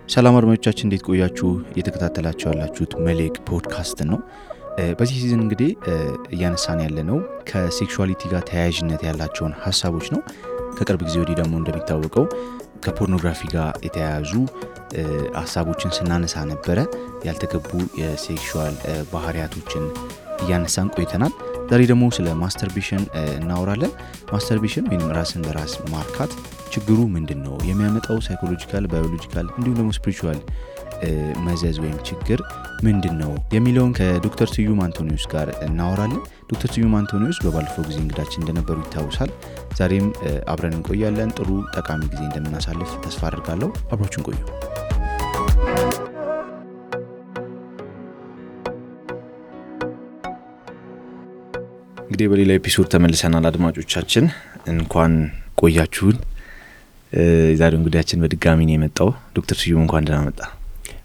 ሰላም አድማጮቻችን እንዴት ቆያችሁ? እየተከታተላችሁ ያላችሁት መልሕቅ ፖድካስት ነው። በዚህ ሲዝን እንግዲህ እያነሳን ያለነው ከሴክሹዋሊቲ ጋር ተያያዥነት ያላቸውን ሐሳቦች ነው። ከቅርብ ጊዜ ወዲህ ደግሞ እንደሚታወቀው ከፖርኖግራፊ ጋር የተያያዙ ሐሳቦችን ስናነሳ ነበረ። ያልተገቡ የሴክሹዋል ባህሪያቶችን እያነሳን ቆይተናል። ዛሬ ደግሞ ስለ ማስተርቤሽን እናወራለን። ማስተርቤሽን ወይም ራስን በራስ ማርካት ችግሩ ምንድነው? የሚያመጣው ሳይኮሎጂካል፣ ባዮሎጂካል እንዲሁም ደግሞ ስፒሪቹዋል መዘዝ ወይም ችግር ምንድነው የሚለውን ከዶክተር ስዩም አንቶኒዮስ ጋር እናወራለን። ዶክተር ስዩም አንቶኒዮስ በባለፈው ጊዜ እንግዳችን እንደነበሩ ይታወሳል። ዛሬም አብረን እንቆያለን። ጥሩ ጠቃሚ ጊዜ እንደምናሳልፍ ተስፋ አድርጋለሁ። አብራችሁን ቆዩ። እንግዲህ በሌላ ኤፒሶድ ተመልሰናል። አድማጮቻችን እንኳን ቆያችሁን። ዛሬው እንግዳችን በድጋሚ ነው የመጣው። ዶክተር ስዩም እንኳን ደህና መጣ።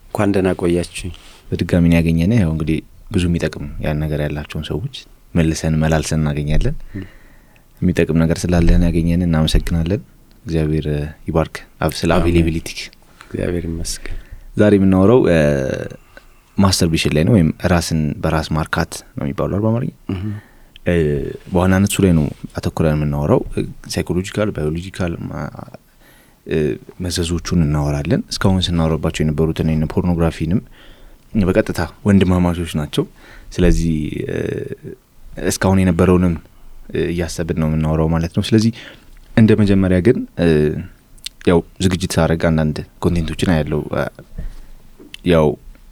እንኳን ደህና ቆያችሁ። በድጋሚ ነው ያገኘነው። ያው እንግዲህ ብዙ የሚጠቅም ያን ነገር ያላቸውን ሰዎች መልሰን መላልሰን እናገኛለን። የሚጠቅም ነገር ስላለህን ያገኘን እናመሰግናለን። እግዚአብሔር ይባርክ። ስለ አቬሌቢሊቲ እግዚአብሔር ይመስገን። ዛሬ የምናወራው ማስተርቤሽን ላይ ነው፣ ወይም ራስን በራስ ማርካት ነው የሚባለው በአማርኛ። በዋናነት እሱ ላይ ነው አተኩረን የምናወራው። ሳይኮሎጂካል፣ ባዮሎጂካል መዘዞቹን እናወራለን። እስካሁን ስናወራባቸው የነበሩትን እና ፖርኖግራፊንም በቀጥታ ወንድማማቾች ናቸው። ስለዚህ እስካሁን የነበረውንም እያሰብን ነው የምናወራው ማለት ነው። ስለዚህ እንደ መጀመሪያ ግን ያው ዝግጅት ሳደርግ አንዳንድ ኮንቴንቶችን አያለው። ያው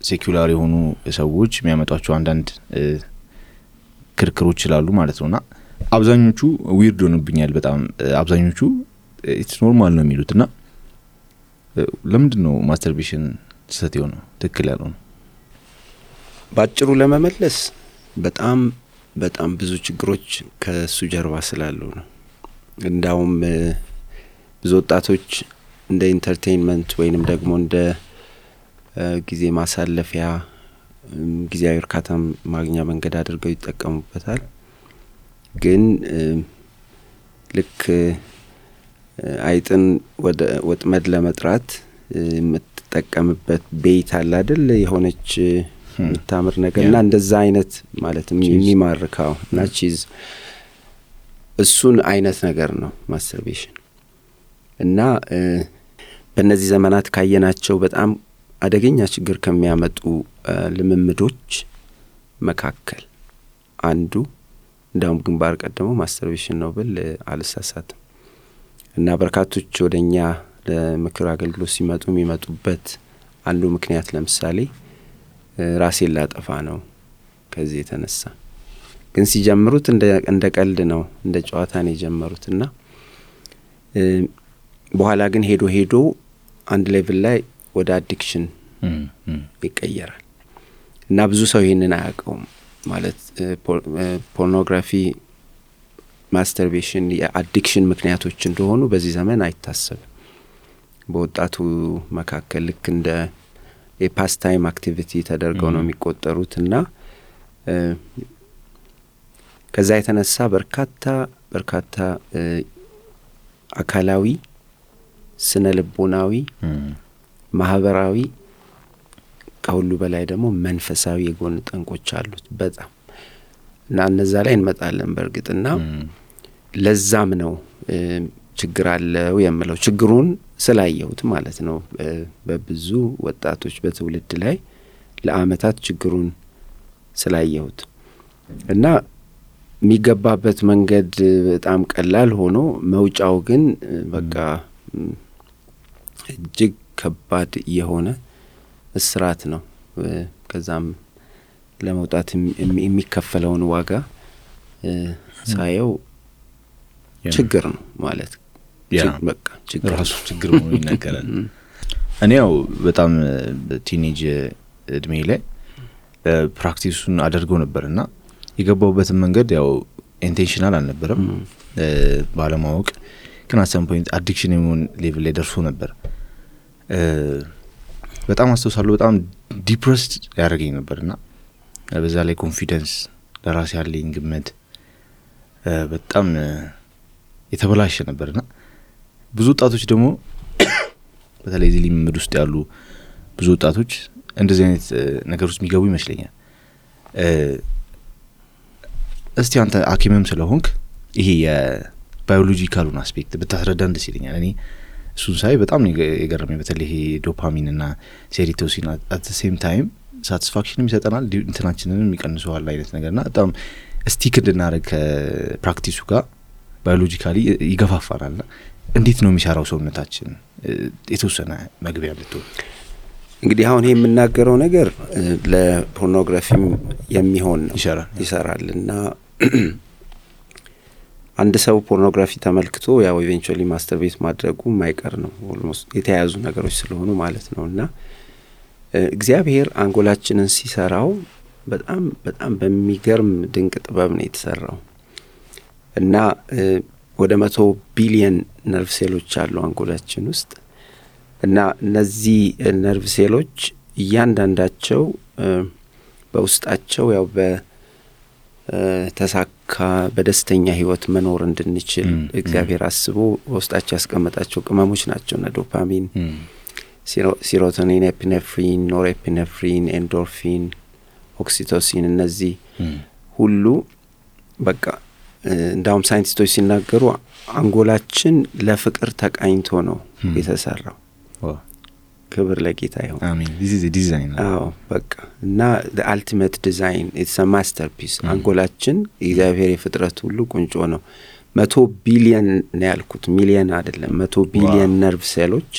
ሴኩላር የሆኑ ሰዎች የሚያመጧቸው አንዳንድ ክርክሮች ይላሉ ማለት ነውና አብዛኞቹ ዊርድ ሆነብኛል በጣም። አብዛኞቹ ኢትስ ኖርማል ነው የሚሉትና ለምንድን ነው ማስተርቤሽን ስህተት የሆነው ትክክል ያልሆነው? ባጭሩ ለመመለስ በጣም ብዙ ችግሮች ከሱ ጀርባ ስላሉ ነው። እንዳውም ብዙ ወጣቶች እንደ ኢንተርቴይንመንት ወይንም ደግሞ እንደ ጊዜ ማሳለፊያ፣ ጊዜያዊ እርካታ ማግኛ መንገድ አድርገው ይጠቀሙበታል። ግን ልክ አይጥን ወደ ወጥመድ ለመጥራት የምትጠቀምበት ቤት አለ አይደል? የሆነች የምታምር ነገርና እንደዛ አይነት ማለት የሚማርካው እና ቺዝ እሱን አይነት ነገር ነው ማስተርቤሽን። እና በእነዚህ ዘመናት ካየናቸው በጣም አደገኛ ችግር ከሚያመጡ ልምምዶች መካከል አንዱ እንዳውም ግንባር ቀደመው ማስተርቤሽን ነው ብል አልሳሳትም። እና በርካቶች ወደኛ ለምክር አገልግሎት ሲመጡ የሚመጡበት አንዱ ምክንያት ለምሳሌ ራሴን ላጠፋ ነው ከዚህ የተነሳ። ግን ሲጀምሩት እንደ ቀልድ ነው፣ እንደ ጨዋታ ነው የጀመሩትና በኋላ ግን ሄዶ አንድ ሌቭል ላይ ወደ አዲክሽን ይቀየራል። እና ብዙ ሰው ይሄንን አያውቀውም ማለት ፖርኖግራፊ፣ ማስተርቤሽን የአዲክሽን ምክንያቶች እንደሆኑ በዚህ ዘመን አይታሰብም። በወጣቱ መካከል ልክ እንደ የፓስ ታይም አክቲቪቲ ተደርገው ነው የሚቆጠሩትና ከዛ የተነሳ በርካታ አካላዊ፣ ስነ ልቦናዊ፣ ማህበራዊ ከሁሉ በላይ ደግሞ መንፈሳዊ የጎን ጠንቆች አሉት በጣም። እና እነዛ ላይ እንመጣለን በእርግጥና ለዛም ነው ችግር አለው የምለው፣ ችግሩን ስላየሁት ማለት ነው። በብዙ ወጣቶች በትውልድ ላይ ለአመታት ችግሩን ስላየሁት እና የሚገባበት መንገድ በጣም ቀላል ሆኖ መውጫው ግን በቃ እጅግ ከባድ የሆነ እስራት ነው። ከዛም ለመውጣት የሚከፈለውን ዋጋ ሳየው ችግር ነው ማለት በቃ ችግር ነው ይነገራል። እኔ ያው በጣም ቲኔጅ እድሜ ላይ ፕራክቲሱን አድርገው ነበርና የገባውበት መንገድ ያው ኢንቴንሽናል አልነበረም፣ ባለማወቅ ግን አት ሰም ፖይንት አዲክሽን የሆነ ሌቭል ላይ ደርሶ ነበር። በጣም አስተውሳለሁ። በጣም ዲፕረስድ ያደረገኝ ነበርና በዛ ላይ ኮንፊደንስ ለራስ ያለኝ ግምት በጣም የተበላሸ ነበርና ብዙ ወጣቶች ደግሞ በተለይ እዚህ ልምምድ ውስጥ ያሉ ብዙ ወጣቶች እንደዚህ አይነት ነገር ውስጥ የሚገቡ ይመስለኛል። እስቲ አንተ ሐኪምም ስለሆንክ ይሄ የባዮሎጂካሉን አስፔክት ብታስረዳን ደስ ይለኛል። እኔ እሱን ሳይ በጣም የገረመኝ በተለይ ይሄ ዶፓሚን እና ሴሮቶኒን at the same time ሳቲስፋክሽንም ይሰጠናል እንትናችንንም ይቀንሰዋል አይነት ነገርና በጣም ስቲክ እንድናደርግ ከፕራክቲሱ ጋር ባዮሎጂካሊ ይገፋፋናልና እንዴት ነው የሚሰራው ሰውነታችን? የተወሰነ መግቢያ ብትሆን። እንግዲህ አሁን ይሄ የምናገረው ነገር ለፖርኖግራፊም የሚሆን ነው ይሰራልና አንድ ሰው ፖርኖግራፊ ተመልክቶ ያው ኢቬንቹዋሊ ማስተርቤት ማድረጉ ማይቀር ነው ኦልሞስት የተያዙ ነገሮች ስለሆኑ ማለት ነውና እግዚአብሔር አንጎላችንን ሲሰራው በጣም በጣም በሚገርም ድንቅ ጥበብ ነው የተሰራው እና ወደ 100 ቢሊየን ነርቭ ሴሎች አሉ አንጎላችን ውስጥ እና እነዚህ ነርቭ ሴሎች እያንዳንዳቸው በውስጣቸው ያው በተሳካ በደስተኛ ህይወት መኖር እንድንችል እግዚአብሔር አስቦ በውስጣቸው ያስቀመጣቸው ቅመሞች ናቸው እና ዶፓሚን፣ ሴሮቶኒን፣ ኤፒኔፍሪን፣ ኖርኤፒኔፍሪን፣ ኤንዶርፊን፣ ኦክሲቶሲን እነዚህ ሁሉ በቃ እንዳውም ሳይንቲስቶች ሲናገሩ አንጎላችን ለፍቅር ተቃኝቶ ነው የተሰራው። ክብር ለጌታ ይሁን። አሜን። this is a design. አዎ በቃ እና the ultimate design, it's a masterpiece. አንጎላችን እግዚአብሔር የፍጥረት ሁሉ ቁንጮ ነው። 100 ቢሊየን ነው ያልኩት፣ ሚሊየን አይደለም። 100 ቢሊየን ነርቭ ሴሎች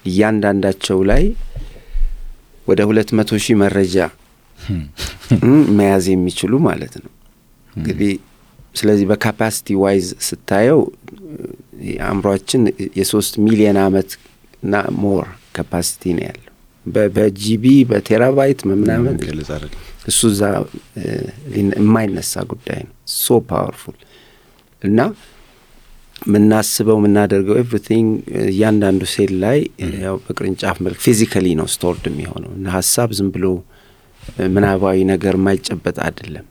እያንዳንዳቸው ላይ ወደ 200,000 መረጃ መያዝ የሚችሉ ማለት ነው እንግዲህ። ስለዚህ በካፓሲቲ ዋይዝ ስታየው አምሮአችን የ3 ሚሊዮን አመት እና ሞር ካፓሲቲ ነው ያለው በጂቢ በቴራባይት ምናምን እሱ ዛ የማይነሳ ጉዳይ ነው። ሶ ፓወርፉል እና ምናስበው ምናደርገው ኤቭሪቲንግ ያንዳንዱ ሴል ላይ ያው በቅርንጫፍ መልክ ፊዚካሊ ነው ስቶርድ የሚሆነው እና ሐሳብ ዝም ብሎ ምናባዊ ነገር ማይጨበጥ አይደለም።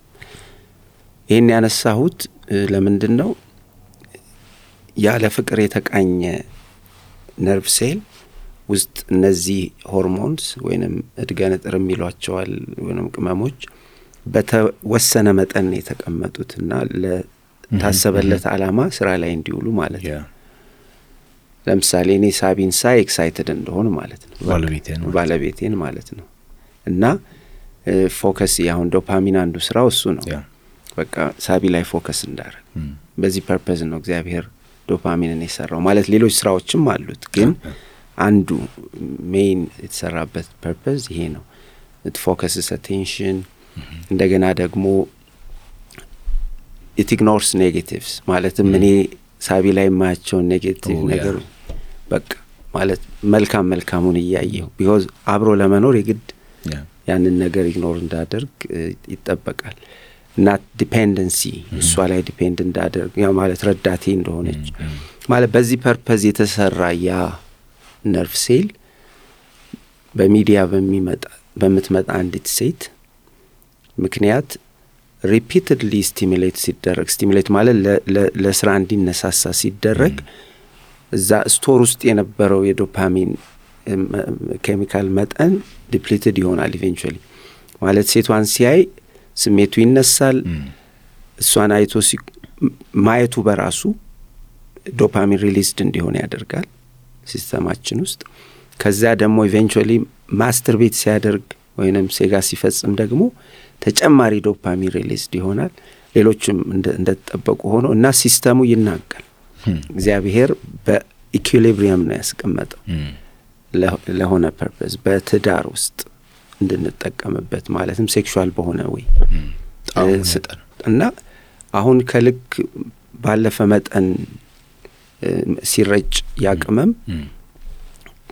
ይሄን ያነሳሁት ለምንድነው ያለ ፍቅር የተቃኘ ነርቭ ሴል ውስጥ እነዚህ ሆርሞንስ ወይንም እድገነጥር የሚሏቸዋል ወይንም ቅመሞች በተወሰነ መጠን የተቀመጡትና ለታሰበለት ዓላማ ስራ ላይ እንዲውሉ ማለት ነው። ለምሳሌ እኔ ሳቢን ሳይ ኤክሳይትድ እንደሆነ ማለት ነው ባለቤቴን ማለት ነው እና ፎከስ ያሁን ዶፓሚን አንዱ ስራው እሱ ነው። በቃ ሳቢ ላይ ፎከስ እንዳደረግ በዚህ ፐርፐዝ ነው እግዚአብሔር ዶፓሚንን የሰራው ማለት ሌሎች ስራዎችም አሉት ግን አንዱ ሜን የተሰራበት ፐርፐዝ ይሄ ነው። it focuses attention እንደገና ደግሞ it ignores negatives ማለትም እኔ ሳቢ ላይ ማያቸው ኔጌቲቭ ነገር በቃ ማለት መልካሙን እያየው because አብሮ ለመኖር የግድ ያንን ነገር ኢግኖር እንዳደርግ ይጠበቃል። not dependency እሷ ላይ ዲፔንድ እንዳደርግ ያ ማለት ረዳቴ እንደሆነች ማለት በዚህ ፐርፐዝ የተሰራ ያ ነርቭ ሴል በሚዲያ በምትመጣ አንዲት ሴት ምክንያት ሪፒትድሊ ስቲሙሌት ማለት ለስራ እንዲነሳሳ ሲደረግ እዛ ስቶር ውስጥ የነበረው የዶፓሚን ኬሚካል መጠን ዲፕሊትድ ይሆናል ኢቬንቹዋሊ ማለት ሴቷን ሲያይ ስሜቱ ይነሳል። እሷን አይቶ ማየቱ በራሱ ዶፓሚን ሪሊዝድ እንዲሆን ያደርጋል ሲስተማችን ውስጥ። ከዛ ደግሞ ኢቬንቹዋሊ ማስተርቤት ሲያደርግ ወይንም ሴጋ ሲፈጽም ደግሞ ተጨማሪ ዶፓሚን ሪሊዝድ ይሆናል። ሌሎችም እንደተጠበቁ ሆኖ እና ሲስተሙ ይናጋል። እግዚአብሔር በኢኩሊብሪየም ነው ያስቀመጠው ለሆነ ፐርፐዝ በትዳር ውስጥ እንድንጠቀምበት ማለትም ሴክሹዋል በሆነ ወይ እና አሁን ከልክ ባለፈ መጠን ሲረጭ ያቅመም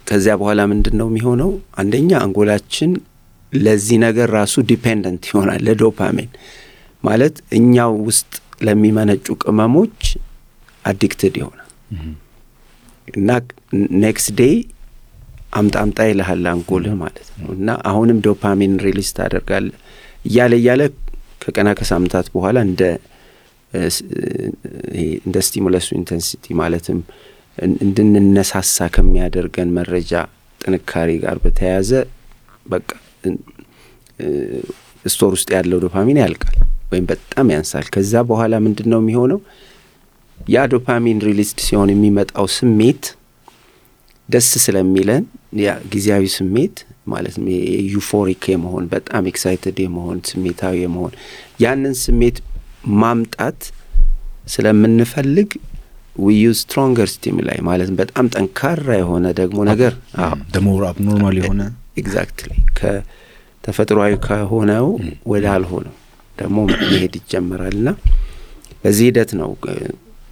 ከዚያ በኋላ ምንድነው የሚሆነው? አንደኛ አንጎላችን ለዚህ ነገር ራሱ ዲፔንደንት ይሆናል ለዶፓሚን ማለት እኛው ውስጥ ለሚመነጩ ቅመሞች አዲክትድ ይሆናል እና ኔክስት ዴይ አምጣ ይልሃል አንጎልህ ማለት ነው እና አሁንም ዶፓሚን ሪሊዝ ታደርጋለህ እያለ ከቀና ከሳምንታት በኋላ እንደ እንደ ስቲሙለስ ኢንተንሲቲ ማለትም እንድንነሳሳ ከሚያደርገን መረጃ ጥንካሬ ጋር በተያያዘ በቃ ስቶር ውስጥ ያለው ዶፓሚን ያልቃል ወይም በጣም ያንሳል። ከዛ በኋላ ምንድነው የሚሆነው? ያ ዶፓሚን ሪሊዝድ ሲሆን የሚመጣው ስሜት ደስ ስለሚለን ያ ጊዜያዊ ስሜት ማለት ነው ዩፎሪክ የመሆን በጣም ኤክሳይትድ የመሆን ስሜታዊ የመሆን ያንን ስሜት ማምጣት ስለምንፈልግ we use stronger stimuli ማለት በጣም ጠንካራ የሆነ ደግሞ ነገር the more abnormal የሆነ exactly ከተፈጥሯዊ ከሆነው ወደ አልሆነው ደግሞ መሄድ ይጀምራልና በዚህ ሂደት ነው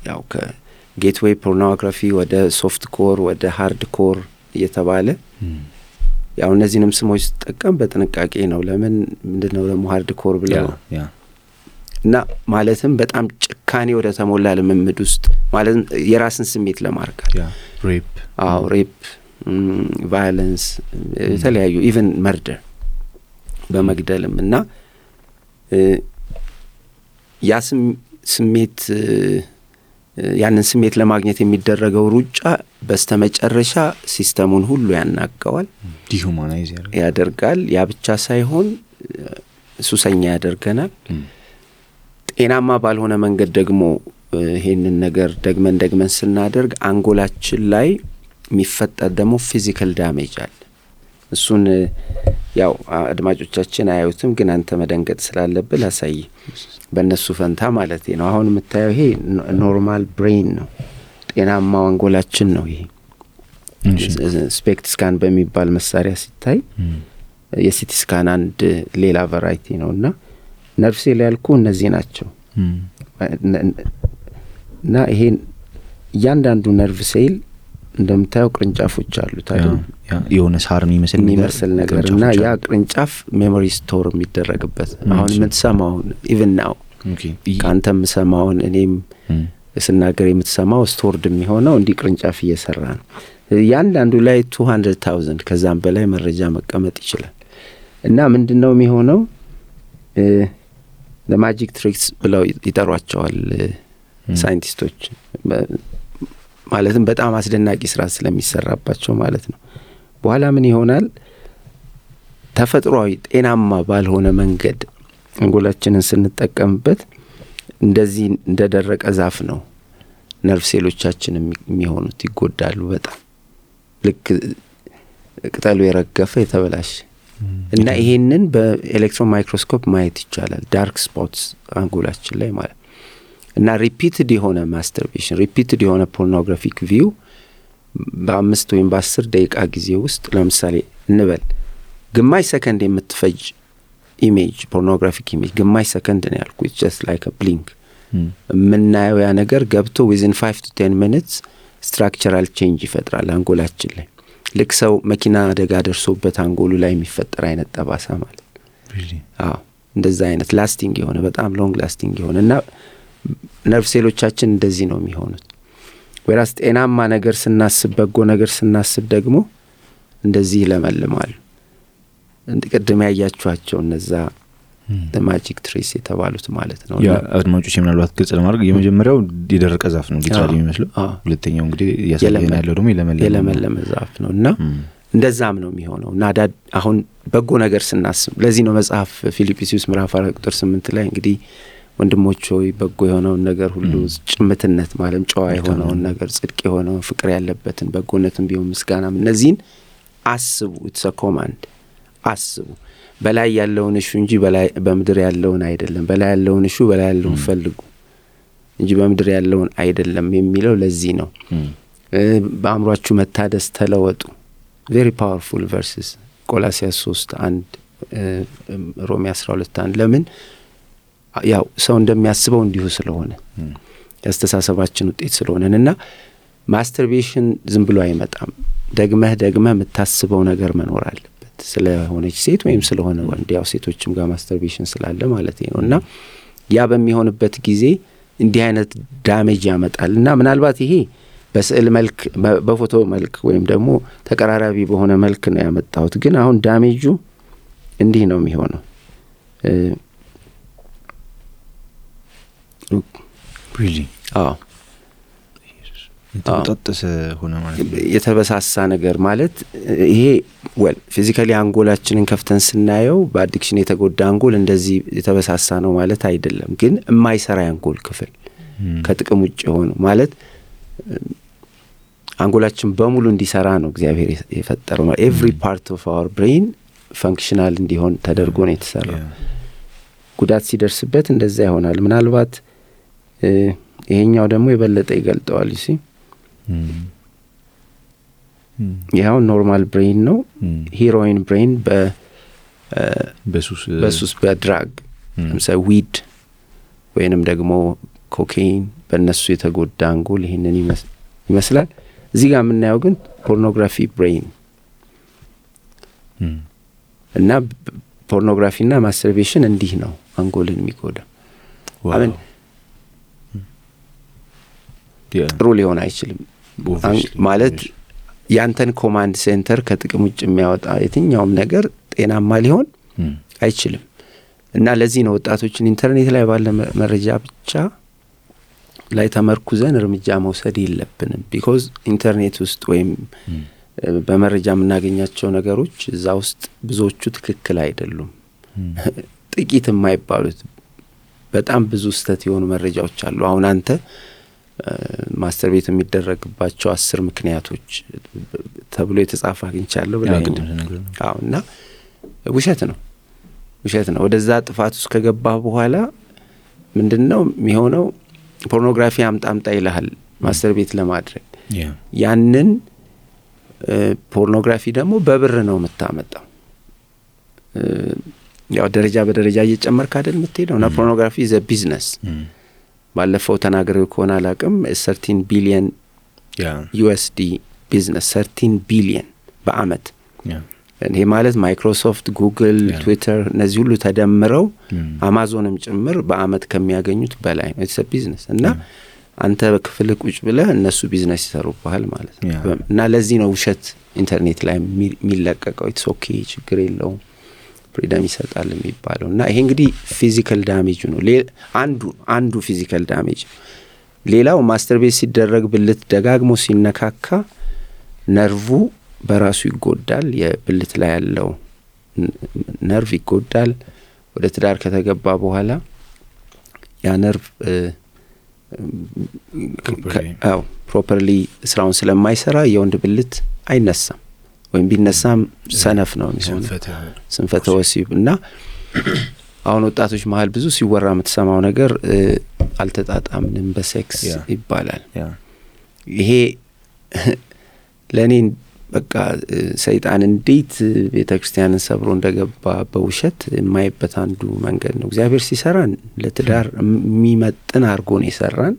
ያው ከጌትዌይ ፖርኖግራፊ ወደ ሶፍት ኮር ወደ ሃርድ ኮር እየተባለ ያው እነዚህንም ስሞች ተጠቀም በጥንቃቄ ነው። ለምን ምንድነው ደግሞ ሃርድ ኮር ብለው እና ማለትም በጣም ጭካኔ ወደ ተሞላ ልምምድ ውስጥ ማለት የራስን ስሜት ለማርካት ሬፕ ቫዮለንስ የተለያዩ ኢቭን መርደር በመግደልም እና ያ ስሜት ያንን ስሜት ለማግኘት የሚደረገው ሩጫ በስተመጨረሻ ሲስተሙን ሁሉ ያናጋዋል፣ ዲሁማናይዝ ያደርጋል። ያ ብቻ ሳይሆን ሱሰኛ ያደርገናል። ጤናማ ባልሆነ መንገድ ደግሞ ይሄንን ነገር ደግመን ስናደርግ አንጎላችን ላይ የሚፈጠር ደግሞ ፊዚካል ዳሜጅ አለ። እሱን ያው አድማጮቻችን አያዩትም፣ ግን አንተ መደንገጥ ስላለብህ ላሳይ በእነሱ ፈንታ ማለት ነው። አሁን የምታየው ይሄ ኖርማል ብሬን ነው፣ ጤናማው አንጎላችን ነው። ይሄ ስፔክት ስካን በሚባል መሳሪያ ሲታይ የሲቲ ስካን አንድ ሌላ ቫራይቲ ነውና ነርቭ ሴል ያልኩ እነዚህ ናቸው እና ይሄን እያንዳንዱ ነርቭ ሴል እንደምታየው ቅርንጫፎች አሉት አይደል? የሆነ ሳር የሚመስል ነገርና ያ ቅርንጫፍ ሜሞሪ ስቶር የሚደረግበት አሁን የምትሰማው ኢቭን ናው ካንተም ሰማውን እኔም ስናገር የምትሰማው ስቶርድ የሚሆነው እንዲህ ቅርንጫፍ እየሰራ ነው። ያንዳንዱ ላይ 200,000 ከዛም በላይ መረጃ መቀመጥ ይችላል። እና ምንድነው የሚሆነው? ለማጂክ ትሪክስ ብለው ይጠሯቸዋል ሳይንቲስቶች። ማለትም በጣም አስደናቂ ስራ ስለሚሰራባቸው ማለት ነው። በኋላ ምን ይሆናል? ተፈጥሯዊ ጤናማ ባልሆነ መንገድ አንጎላችንን ስንጠቀምበት እንደዚህ እንደደረቀ ዛፍ ነው ነርቭ ሴሎቻችን የሚሆኑት፣ ይጎዳሉ በጣም ልክ ቅጠሉ የረገፈ የተበላሸ እና ይሄንን በኤሌክትሮን ማይክሮስኮፕ ማየት ይቻላል። ዳርክ ስፖትስ አንጎላችን ላይ ማለት እና ሪፒትድ የሆነ ማስተርቤሽን ሪፒትድ የሆነ ፖርኖግራፊክ ቪው በ5 ወይም በ10 ደቂቃ ጊዜ ውስጥ ለምሳሌ እንበል ግማሽ ሰከንድ የምትፈጅ ኢሜጅ ፖርኖግራፊክ ኢሜጅ ግማሽ ሰከንድ ነው ያልኩት just like a blink ምናየው ያ ነገር ገብቶ within 5 to 10 minutes structural change ይፈጥራል አንጎላችን ላይ። ልክ ሰው መኪና አደጋ ደርሶበት አንጎሉ ላይ የሚፈጠር አይነት ጠባሳ ማለት እንደዛ አይነት ላስቲንግ የሆነ በጣም ሎንግ ላስቲንግ የሆነና ነርቭ ሴሎቻችን እንደዚህ ነው የሚሆኑት። ወራስ ጤናማ ነገር ስናስብ በጎ ነገር ስናስብ ደግሞ እንደዚህ ለመልማሉ። እንደቀደም ያያችኋቸው እነዛ ማጂክ ትሪስ የተባሉት ማለት ነው። ያ አድማጮች ምናልባት ግልጽ ለማድረግ የመጀመሪያው የደረቀ ዛፍ ነው ሊታሊ የሚመስለው፣ ሁለተኛው እንግዲህ ያሳየን ያለው ደግሞ የለመለመ ዛፍ ነውና እንደዛም ነው የሚሆነው። እና አሁን በጎ ነገር ስናስብ ለዚህ ነው መጽሐፍ ፊልጵስዩስ ምዕራፍ 4 ቁጥር 8 ላይ እንግዲህ ወንድሞች ሆይ በጎ የሆነውን ነገር ሁሉ ጭምትነት ማለት ጨዋ የሆነውን ነገር ጽድቅ የሆነውን ፍቅር ያለበትን በጎነትን ቢሆን ምስጋናም እነዚህን አስቡ። it's a command አስቡ። በላይ ያለውን እሹ እንጂ በምድር ያለውን አይደለም፣ በላይ ያለውን እሹ በላይ ያለውን ፈልጉ እንጂ በምድር ያለውን አይደለም የሚለው ለዚህ ነው። በአእምሯችሁ መታደስ ተለወጡ። very powerful verses ቆላስይስ 3:1 ሮሜ 12:1 ለምን ያው ሰው እንደሚያስበው እንዲሁ ስለሆነ ያስተሳሰባችን ውጤት ስለሆነና ማስተርቤሽን ዝም ብሎ አይመጣም። ደግመህ የምታስበው ነገር መኖር አለበት ስለሆነች ሴት ወይም ስለሆነ ወንድ፣ ያው ሴቶችም ጋር ማስተርቤሽን ስላለ ማለት ነውና ያ በሚሆንበት ጊዜ እንዲህ አይነት ዳሜጅ ያመጣልና ምናልባት ይሄ በስዕል መልክ በፎቶ መልክ ወይም ደግሞ ተቀራራቢ በሆነ መልክ ነው ያመጣሁት። ግን አሁን ዳሜጁ እንዲህ ነው የሚሆነው። really ተጣጣሰ ሆነ ማለት የተበሳሳ ነገር ማለት ይሄ well physically አንጎላችንን ከፍተን ስናየው በአዲክሽን የተጎዳ አንጎል እንደዚህ የተበሳሳ ነው ማለት አይደለም ግን የማይሰራ አንጎል ክፍል ከጥቅም ውጭ ሆኖ ማለት አንጎላችን በሙሉ እንዲሰራ ነው እግዚአብሔር የፈጠረው every part of our brain functional እንዲሆን ተደርጎ ነው የተሰራው ጉዳት ሲደርስበት እንደዛ ይሆናል ምናልባት ይሄኛው ደግሞ የበለጠ ይገልጠዋል እሺ ያው ኖርማል ብሬን ነው ሄሮይን ብሬን በሱስ በድራግ ለምሳሌ ዊድ ወይንም ደግሞ ኮካይን በእነሱ የተጎዳ አንጎል ይሄንን ይመስላል እዚህ ጋር የምናየው ግን ፖርኖግራፊ ብሬን እና ፖርኖግራፊና ማስተርቤሽን እንዲህ ነው አንጎልን የሚጎዳ አሁን ጥሩ ሊሆን አይችልም ማለት ያንተን ኮማንድ ሴንተር ከጥቅም ውጭ የሚያወጣ የትኛውም ነገር ጤናማ ሊሆን አይችልም እና ለዚህ ነው ወጣቶችን ኢንተርኔት ላይ ባለ መረጃ ብቻ ላይ ተመርኩዘን እርምጃ መውሰድ የለብንም because ኢንተርኔት ውስጥ ወይም በመረጃ የምናገኛቸው ነገሮች እዛ ውስጥ ብዙዎቹ ትክክል አይደሉም ጥቂት የማይባሉት በጣም ብዙ ስተት የሆኑ መረጃዎች አሉ አሁን አንተ ማስተርቤት የሚደረግባቸው 10 ምክንያቶች ተብሎ የተጻፈ አግኝቻለሁ አውና ውሸት ነው ወደዛ ጥፋት ውስጥ ከገባ በኋላ ምንድነው የሚሆነው ፖርኖግራፊ አምጣምጣ ይልሃል ማስተርቤት ለማድረግ ያንን ፖርኖግራፊ ደግሞ በብር ነው የምታመጣው ያው ደረጃ በደረጃ እየጨመርክ አይደል የምትሄደው እና ፖርኖግራፊ is a business ባለፈው ተናገረው ከሆነ አላቅም 13 ቢሊዮን USD ቢዝነስ 13 ቢሊዮን በአመት ይሄ ማለት ማይክሮሶፍት ጉግል ትዊተር እነዚህ ሁሉ ተደምረው አማዞንም ጭምር በአመት ከሚያገኙት በላይ ነው it's a business እና አንተ በክፍል ቁጭ ብለህ እነሱ ቢዝነስ ይሰሩባል ማለት ነው እና ለዚህ ነው ውሸት ኢንተርኔት ላይ የሚለቀቀው it's okay ችግር የለውም ፍሪደም ይሰጣል የሚባለው እና ይሄ እንግዲህ ፊዚካል ዳሜጅ ነው አንዱ ፊዚካል ዳሜጅ ሌላው ማስተርቤት ሲደረግ ብልት ደጋግሞ ሲነካካ ነርቭ በራሱ ይጎዳል የብልት ላይ ያለው ነርቭ ይጎዳል ወደ ትዳር ከተገባ በኋላ ያ ነርቭ ፕሮፐርሊ ስራውን ስለማይሰራ የወንድ ብልት አይነሳም ወይም ቢነሳም ሰነፍ ነው የሚሆነው ስንፈተ ወሲብ እና አሁን ወጣቶች መሃል ብዙ ሲወራ የምትሰማው ነገር አልተጣጣምንም በሴክስ ይባላል ይሄ ለኔ በቃ ሰይጣን እንዴት ቤተክርስቲያንን ሰብሮ እንደገባ በውሸት የማይበት አንዱ መንገድ ነው እግዚአብሔር ሲሰራን ለትዳር የሚመጥን አድርጎ ነው የሰራን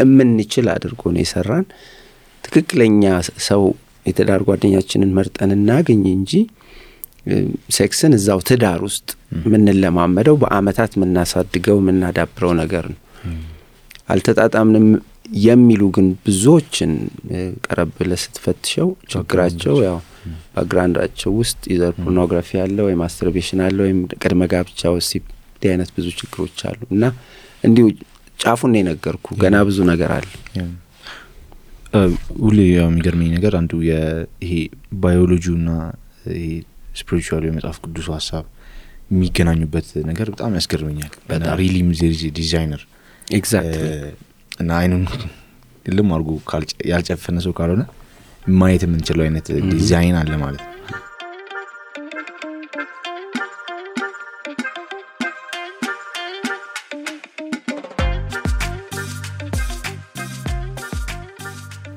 እምንችል አድርጎ ነው የሰራን ትክክለኛ ሰው የትዳር ጓደኛችንን መርጠን እናገኝ እንጂ ሴክስን እዛው ትዳር ውስጥ ምን ለማመደው በአመታት ምናሳድገው ምናዳብረው ነገር ነው አልተጣጣምንም የሚሉ ግን ብዙዎችን ቀረብ ለስትፈትሸው ችግራቸው ያው ባክግራውንዳቸው ውስጥ ኢዘር ፖርኖግራፊ አለ ወይ ማስተርቤሽን አለ ወይ ቅድመ ጋብቻ ወሲብ አይነት ብዙ ችግሮች አሉ እና እንዲሁ ጫፉን ነው የነገርኩ ገና ብዙ ነገር አለ ሁሌ የሚገርመኝ ነገር አንዱ ይሄ ባዮሎጂውና ይሄ ስፒሪቹዋል የመጽሐፍ ቅዱስ ሐሳብ የሚገናኙበት ነገር በጣም ያስገርመኛል እና ሪሊም ዲዛይነር ኤግዛክትሊ እና አይኑን ልም አርጎ ያልጨፈነ ሰው ካልሆነ ማየት የምንችለው አይነት ዲዛይን አለ ማለት ነው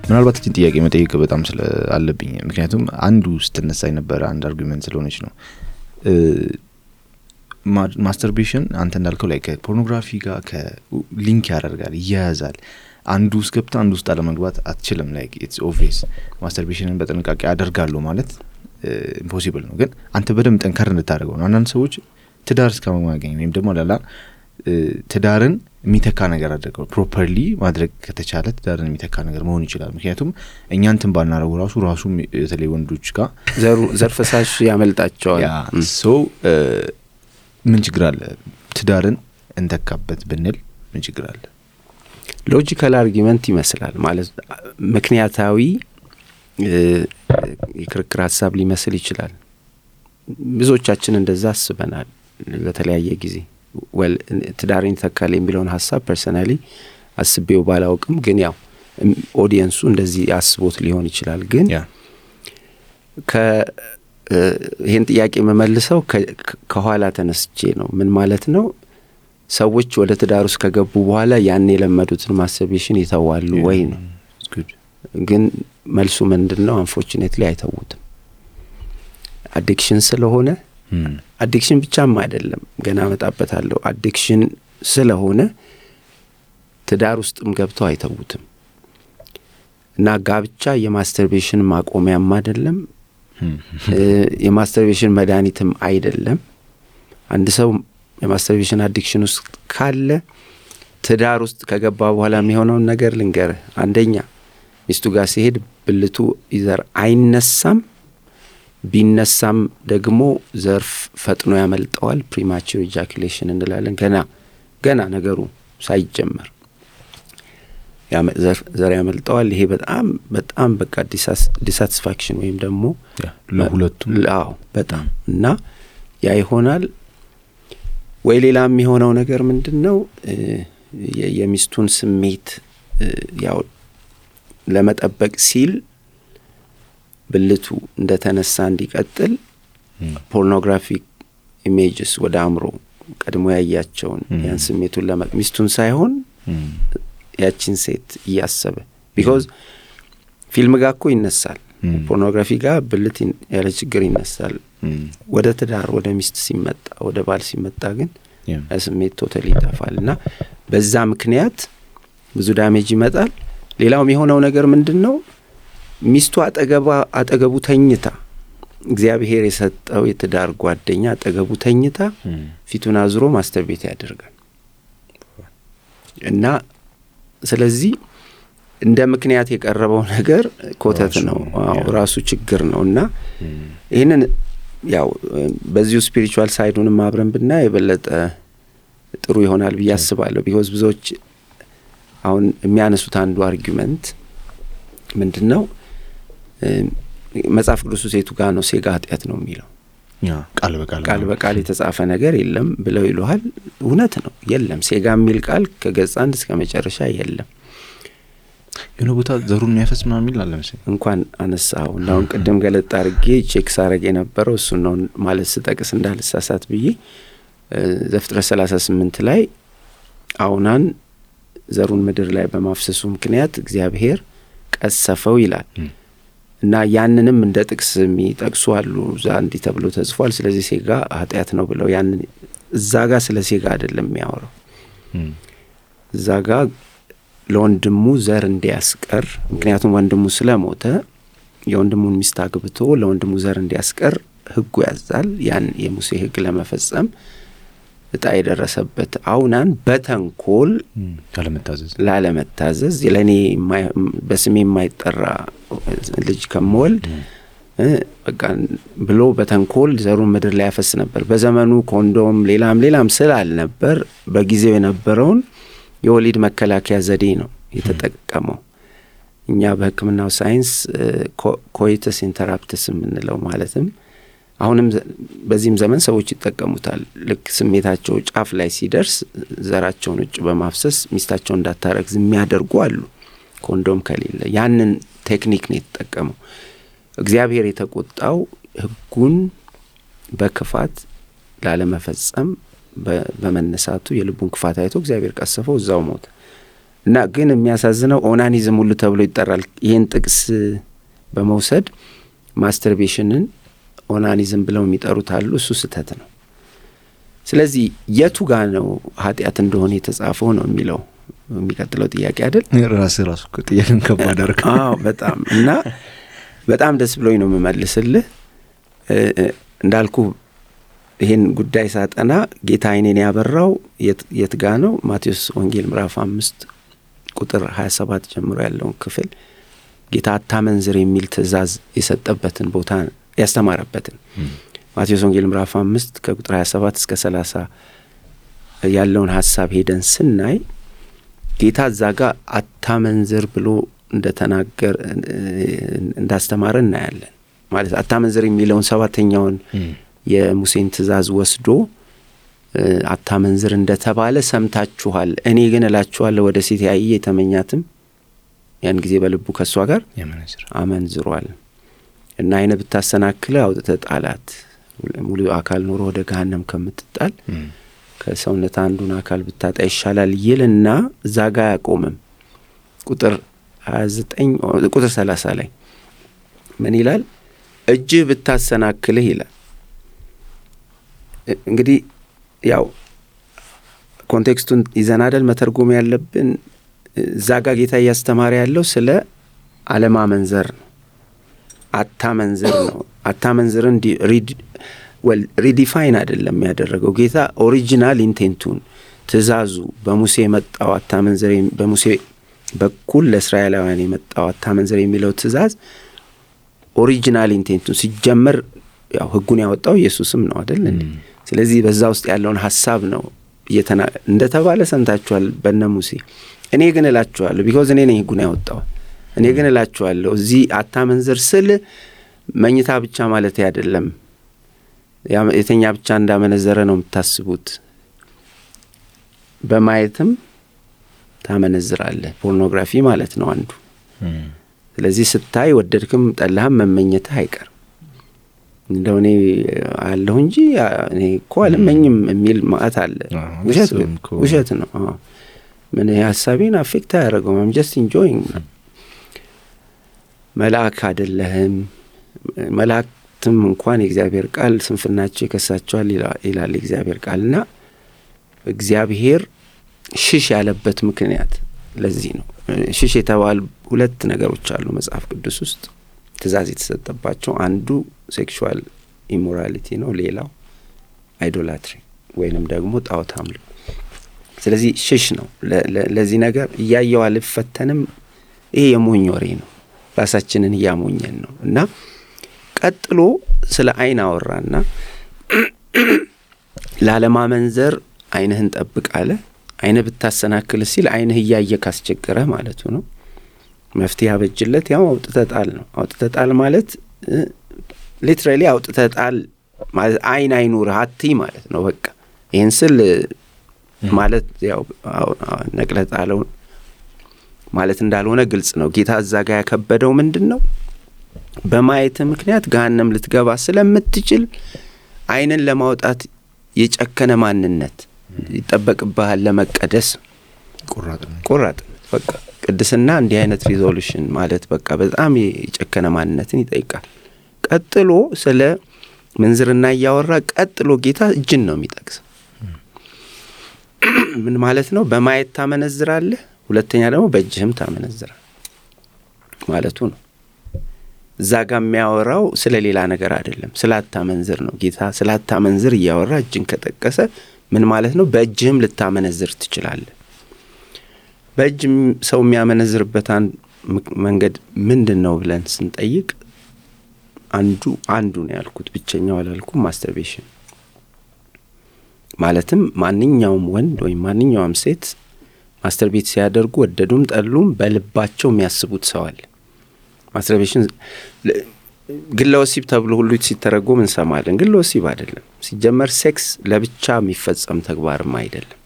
ምናልባት እቺን ጥያቄ መጠየቅ በጣም አለብኝ ምክንያቱም አንዱ ስትነሳ የነበረ አንድ አርጉመንት ስለሆነች ነው ማስተርቤሽን አንተ እንዳልከው ላይ ከፖርኖግራፊ ጋር ከሊንክ ያደርጋል ይያዛል አንዱ ውስጥ ገብታ አንዱ ውስጥ አለመግባት አትችልም ላይክ ኢትስ ኦብቪየስ ማስተርቤሽንን በጥንቃቄ አደርጋለሁ ማለት ኢምፖሲብል ነው ግን አንተ በደም ጠንካራ እንድታደርገው ነው አንዳንድ ሰዎች ትዳር እስከማግኘት ወይም ደግሞ ላላ ትዳርን የሚተካ ነገር አድርገው ፕሮፐርሊ ማድረግ ከተቻለ ትዳርን የሚተካ ነገር መሆን ይችላል ምክንያቱም እኛ እንትን ባናረው ራሱ የተለይ ወንዶች ጋር ዘርፈሳሽ ያመልጣቸዋል ሶ ምን ችግር አለ ትዳርን እንተካበት ብንል ምን ችግር አለ ሎጂካል አርጊመንት ይመስላል ማለት ምክንያታዊ የክርክር ሐሳብ ሊመስል ይችላል። ብዙዎቻችን እንደዛ አስበናል በተለያየ ጊዜ። ትዳሬን ተካል የሚለውን ሐሳብ ፐርሰናሊ አስቤው ባላውቅም ግን ያው ኦዲየንሱ እንደዚህ አስቦት ሊሆን ይችላል። ግን ይሄን ጥያቄ መመልሰው ከኋላ ተነስቼ ነው። ምን ማለት ነው? ሰዎች ወደ ትዳር ውስጥ ከገቡ በኋላ ያን የለመዱትን ማስተርቤሽን ይተዋሉ ወይ ነው። ግን መልሱ ምንድነው? አንፎርቹኔትሊ አይተውትም። አዲክሽን ስለሆነ አዲክሽን ብቻም አይደለም፣ ገና መጣበታለሁ። አዲክሽን ስለሆነ ትዳር ውስጥም ገብተው አይተውትም። እና ጋብቻ የማስተርቤሽን ማቆሚያም አይደለም፣ የማስተርቤሽን መድኃኒትም አይደለም። አንድ ሰው የማስተርቤሽን አዲክሽን ውስጥ ካለ ትዳር ውስጥ ከገባ በኋላ የሚሆነውን ነገር ልንገርህ። አንደኛ ሚስቱ ጋር ሲሄድ ብልቱ ይዘር አይነሳም፣ ቢነሳም ደግሞ ዘርፍ ፈጥኖ ያመልጠዋል። ፕሪማቹር ኢጃኩሌሽን እንላለን። ገና ነገሩ ሳይጀመር ዘር ያመልጠዋል። ይሄ በጣም በቃ ዲሳቲስፋክሽን ወይም ደግሞ ለሁለቱም በጣም እና ያ ይሆናል። ወይ ሌላ የሚሆነው ነገር ምንድነው? የሚስቱን ስሜት ያው ለመጠበቅ ሲል ብልቱ እንደተነሳ እንዲቀጥል ፖርኖግራፊክ ኢሜጅስ ወደ አእምሮ ቀድሞ ያያቸውን ያን ስሜቱን ሚስቱን ሳይሆን ያቺን ሴት እያሰበ ቢኮዝ ፊልም ጋር እኮ ይነሳል፣ ፖርኖግራፊ ጋር ብልት ያለ ችግር ይነሳል። ወደ ትዳር ወደ ሚስት ሲመጣ ወደ ባል ሲመጣ ግን ስሜት ቶታሊ ይጠፋልና በዛ ምክንያት ብዙ ዳሜጅ ይመጣል። ሌላው የሆነው ነገር ምንድነው? ሚስቱ አጠገቡ ተኝታ እግዚአብሔር የሰጠው የትዳር ጓደኛ አጠገቡ ተኝታ ፊቱን አዝሮ ማስተርቤት ያደርጋል እና ስለዚህ እንደ ምክንያት የቀረበው ነገር ኮተት ነው፣ ራሱ ችግር ነውና ይሄንን ያው በዚሁ ስፒሪቹዋል ሳይዱንም አብረን ብናይ የበለጠ ጥሩ ይሆናል ብዬ አስባለሁ። ቢኮዝ ብዙዎች አሁን የሚያነሱት አንዱ አርጊመንት ምንድነው? መጽሐፍ ቅዱስ ሴቱ ጋር ነው ሴጋ ኃጢአት ነው የሚለው፣ ቃል በቃል የተጻፈ ነገር የለም ብለው ይሉሃል። እውነት ነው፣ የለም። ሴጋ የሚል ቃል ከገጽ 1 እስከ መጨረሻ የለም። የሆነ ቦታ ዘሩን የሚያፈስ ምናምን የሚል አለ መሰለኝ። እንኳን አነሳው እና አሁን ቅድም ገለጥ አድርጌ ቼክ ሳረግ የነበረው እሱ ነው ማለት ስጠቅስ እንዳልሳሳት ብዬ ዘፍጥረት 38 ላይ አውናን ዘሩን ምድር ላይ በማፍሰሱ ምክንያት እግዚአብሔር ቀሰፈው ይላል እና ያንንም እንደ ጥቅስ የሚጠቅሱ አሉ። ዛንዲ ተብሎ ተጽፏል። ስለዚህ ሴጋ ኃጢአት ነው ብለው ያንን እዛ ጋር ስለ ሴጋ አይደለም የሚያወራው። እዛ ጋር ለወንድሙ ዘር እንዲያስቀር፣ ምክንያቱም ወንድሙ ስለሞተ የወንድሙን ሚስት አግብቶ ለወንድሙ ዘር እንዲያስቀር ሕጉ ያዛል። ያን የሙሴ ሕግ ለመፈጸም እጣ የደረሰበት አውናን በተንኮል ላለመታዘዝ ለኔ በስሜ የማይጠራ ልጅ ከመወልድ በቃ ብሎ በተንኮል ዘሩን ምድር ላይ ያፈስ ነበር። በዘመኑ ኮንዶም ሌላም ስላልነበር በጊዜው የነበረውን የወሊድ መከላከያ ዘዴ ነው የተጠቀመው። እኛ በሕክምናው ሳይንስ ኮይተስ ኢንተራፕትስ የምንለው ማለትም አሁንም በዚህም ዘመን ሰዎች ይጠቀሙታል። ልክ ስሜታቸው ጫፍ ላይ ሲደርስ ዘራቸውን ውጭ በማፍሰስ ሚስታቸው እንዳታረግዝ የሚያደርጉ አሉ፣ ኮንዶም ከሌለ። ያንን ቴክኒክ ነው የተጠቀመው። እግዚአብሔር የተቆጣው ሕጉን በክፋት ላለመፈጸም በመነሳቱ የልቡን ክፋት አይቶ እግዚአብሔር ቀሰፈው፣ እዛው ሞተ እና ግን የሚያሳዝነው ኦናኒዝም ሁሉ ተብሎ ይጠራል። ይሄን ጥቅስ በመውሰድ ማስተርቤሽንን ኦናኒዝም ብለው የሚጠሩት አሉ። እሱ ስህተት ነው። ስለዚህ የቱ ጋር ነው ኃጢአት እንደሆነ የተጻፈው ነው የሚለው የሚቀጥለው ጥያቄ አይደል? ራሱ ጥያቄን ከባድ አድርግ። በጣም እና በጣም ደስ ብሎኝ ነው የምመልስልህ። እንዳልኩ ይሄን ጉዳይ ሳጠና ጌታ አይኔን ያበራው የት ጋ ነው? ማቴዎስ ወንጌል ምዕራፍ 5 ቁጥር 27 ጀምሮ ያለውን ክፍል ጌታ አታመንዝር የሚል ትእዛዝ የሰጠበትን ቦታ ያስተማረበትን ማቴዎስ ወንጌል ምዕራፍ 5 ከቁጥር 27 እስከ 30 ያለውን ሐሳብ ሄደን ስናይ ጌታ እዛ ጋር አታመንዝር ብሎ እንደተናገር እንዳስተማረ እናያለን። ማለት አታመንዝር የሚለውን 7ኛውን የሙሴን ትእዛዝ ወስዶ አታመንዝር እንደተባለ ሰምታችኋል፣ እኔ ግን እላችኋለሁ ወደ ሴት ያየ የተመኛትም ያን ጊዜ በልቡ ከሷ ጋር አመንዝሯል እና አይነ ብታሰናክለ አውጥተህ ጣላት፣ ሙሉ አካል ኖሮ ወደ ገሃነም ከምትጣል ከሰውነት አንዱን አካል ብታጣ ይሻላል ይልና እዛ ጋር ያቆምም። ቁጥር 29 ቁጥር 30 ላይ ምን ይላል? እጅ ብታሰናክልህ ይላል። እንግዲህ ያው ኮንቴክስቱን ይዘን አይደል መተርጎም ያለብን። እዛ ጋር ጌታ እያስተማረ ያለው ስለ አለማመንዘር ነው። አታመንዝር ነው። አታመንዝርን ሪዲፋይን አይደለም ያደረገው ጌታ። ኦሪጂናል ኢንቴንቱን ትእዛዙ በሙሴ የመጣው አታመንዝር፣ በሙሴ በኩል ለእስራኤላውያን የመጣው አታመንዝር የሚለው ትእዛዝ ኦሪጂናል ኢንቴንቱን ሲጀመር ያው ህጉን ያወጣው ኢየሱስም ነው አይደል? ስለዚህ በዛ ውስጥ ያለውን ሐሳብ ነው እንደተባለ ሰምታችኋል በእነ ሙሴ። እኔ ግን እላችኋለሁ ቢኮዝ እኔ ነኝ ህጉን ያወጣው። እኔ ግን እላችኋለሁ እዚህ አታመንዝር ስል መኝታ ብቻ ማለት አይደለም። የተኛ ብቻ እንዳመነዘረ ነው የምታስቡት። በማየትም ታመነዝራለህ። ፖርኖግራፊ ማለት ነው አንዱ። ስለዚህ ስታይ ወደድክም ጠላህም መመኘትህ አይቀርም። እንደው እኔ አለሁ እንጂ እኔ እኮ አልመኝም የሚል ማለት አለ። ውሸት ነው። ምን ሐሳቤን አፌክት አያደርገውም። I'm just enjoying። መልአክ አይደለህም። መላእክትም እንኳን የእግዚአብሔር ቃል ስንፍናቸው ይከሳቸዋል ይላል የእግዚአብሔር ቃልና እግዚአብሔር ሽሽ ያለበት ምክንያት ለዚህ ነው። ሽሽ የተባሉ 2 ነገሮች አሉ መጽሐፍ ቅዱስ ውስጥ ትእዛዝ የተሰጠባቸው። አንዱ ሴክሹዋል ኢሞራሊቲ ነው፣ ሌላው አይዶላትሪ ወይንም ደግሞ ጣዖት አምልኮ። ስለዚህ ሽሽ ነው ለዚህ ነገር። እያየው አልፈተንም፣ ይሄ የሞኝ ወሬ ነው፣ ራሳችንን እያሞኘን ነው። እና ቀጥሎ ስለ አይን አወራና ላለማመንዘር አይንህን ጠብቅ አለ። አይነ ብታሰናክል ሲል አይንህ እያየ ካስቸገረ ማለቱ ነው። መፍትሄ አበጅለት ያው አውጥተጣል ነው። አውጥተጣል ማለት ሊትራሊ አውጥተጣል ማለት አይን አይኑርህ አትይ ማለት ነው። በቃ ይሄን ስል ማለት ያው ነቅለጣለው ማለት እንዳልሆነ ግልጽ ነው። ጌታ እዛ ጋር ያከበደው ምንድነው? በማየት ምክንያት ገሃነም ልትገባ ስለምትችል አይንን ለማውጣት የጨከነ ማንነት ይጠበቅብሃል። ለመቀደስ ቁራጥ በቃ ቅድስና እንዲህ አይነት ሪዞሉሽን ማለት በቃ በጣም የጨከነ ማንነትን ይጠይቃል። ቀጥሎ ስለ ምንዝርና ያወራ። ቀጥሎ ጌታ እጅን ነው የሚጠቅስ። ምን ማለት ነው? በማየት ታመነዝራለህ፣ ሁለተኛ ደግሞ በእጅህም ታመነዝራለህ ማለቱ ነው። እዛ ጋር የሚያወራው ስለ ሌላ ነገር አይደለም፣ ስላታመንዝር ነው። ጌታ ስላታመንዝር እያወራ እጅን ከጠቀሰ ምን ማለት ነው? በእጅህም ልታመነዝር ትችላለህ። በእጅ ሰው የሚያመነዝርበት መንገድ ምንድነው ብለን ስንጠይቅ አንዱ ነው ያልኩት፣ ብቸኛው አላልኩም። ማስተርቤሽን ማለትም ማንኛውም ወንድ ወይም ማንኛውም ሴት ማስተርቤት ሲያደርጉ ወደዱም ጠሉም በልባቸው የሚያስቡት ሰው አለ። ማስተርቤሽን ግለወሲብ ተብሎ ሁሉ ሲተረጎም እንሰማለን። ግለወሲብ አይደለም። ሲጀመር ሴክስ ለብቻ የሚፈጸም ተግባርም አይደለም።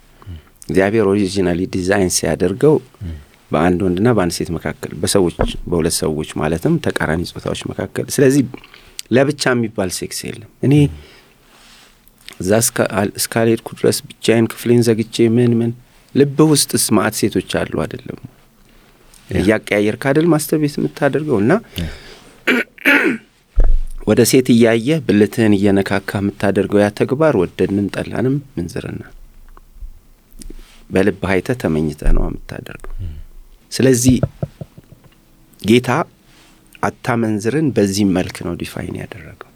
እግዚአብሔር ኦሪጂናሊ ዲዛይን ሲያደርገው በአንድ ወንድና በአንድ ሴት መካከል በሁለት ሰዎች ማለትም ተቃራኒ ጾታዎች መካከል። ስለዚህ ለብቻ የሚባል ሴክስ የለም። እኔ እዛ እስካልሄድኩ ድረስ ብቻዬን ክፍሌን ዘግቼ ምን ልብ ውስጥ ስማት ሴቶች አሉ አይደለም? እያቀያየርክ አይደል ማስተርቤት የምታደርገውና ወደ ሴት እያየህ ብልትህን እየነካካ የምታደርገው ያ ተግባር ወደድንም ጠላንም ምንዝርና በልብ አይተህ ተመኝተህ ነው የምታደርገው። ስለዚህ ጌታ አታመንዝርን በዚህ መልክ ነው ዲፋይን ያደረገው።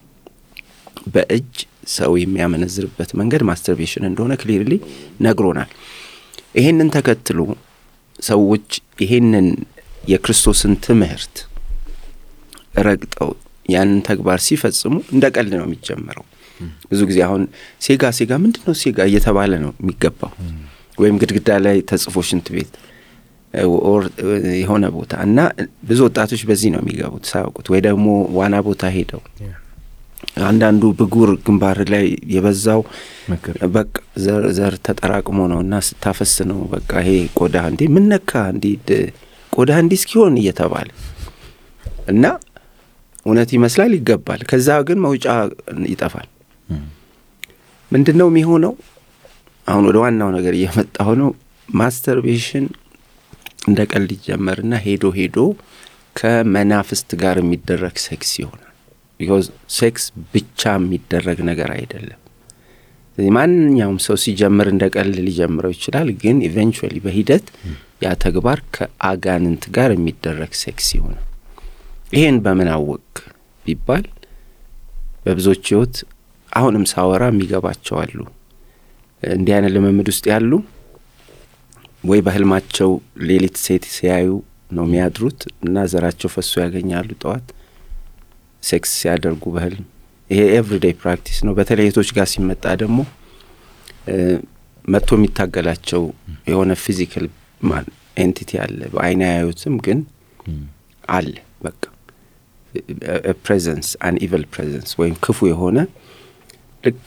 በእጅ ሰው የሚያመነዝርበት መንገድ ማስተርቤሽን እንደሆነ ክሊርሊ ነግሮናል። ይሄንን ተከትሎ ሰዎች ይሄንን የክርስቶስን ትምህርት ረግጠው ያንን ተግባር ሲፈጽሙ እንደ ቀልድ ነው የሚጀምረው። ብዙ ጊዜ አሁን ሴጋ ምንድነው ሴጋ እየተባለ ነው የሚገባው። ወይም ግድግዳ ላይ ተጽፎ ሽንት ቤት ኦር የሆነ ቦታ እና ብዙ ወጣቶች በዚህ ነው የሚገቡት ሳያውቁት ወይ ደግሞ ዋና ቦታ ሄደው አንዳንዱ ብጉር ግንባር ላይ የበዛው በቃ ዘር ተጠራቅሞ ነውና ስታፈስ ነው በቃ ይሄ ቆዳ እንዴ ምን ነካ እንዴ ቆዳ እንዲህ እስኪሆን እየተባለ እና እውነት ይመስላል ይገባል ከዛ ግን መውጫ ይጠፋል ምንድነው የሚሆነው አሁን ወደ ዋናው ነገር እየመጣው ነው ማስተርቤሽን እንደ ቀልድ ይጀመርና ሄዶ ከመናፍስት ጋር የሚደረግ ሴክስ ይሆናል because ሴክስ ብቻ የሚደረግ ነገር አይደለም ማንኛውም ሰው ሲጀምር እንደ ቀልድ ሊጀምረው ይችላል ግን ኢቨንቹዋሊ በሂደት ያ ተግባር ከአጋንንት ጋር የሚደረግ ሴክስ ይሆናል ይሄን በምን አወቅ ቢባል በብዙዎች ህይወት አሁንም ሳወራ የሚገባቸው አሉ እንዲህ አይነት ልምምድ ውስጥ ያሉ ወይ በህልማቸው ሌሊት ሴት ሲያዩ ነው የሚያድሩት እና ዘራቸው ፈሶ ያገኛሉ ጠዋት ሴክስ ሲያደርጉ በህልም ይሄ ኤቭሪዴይ ፕራክቲስ ነው በተለይ ሴቶች ጋር ሲመጣ ደግሞ መጥቶ የሚታገላቸው የሆነ ፊዚካል ማን ኤንቲቲ አለ በአይን ያዩትም ግን አለ በቃ ፕሬዘንስ አን ኢቪል ፕሬዘንስ ወይም ክፉ የሆነ ልክ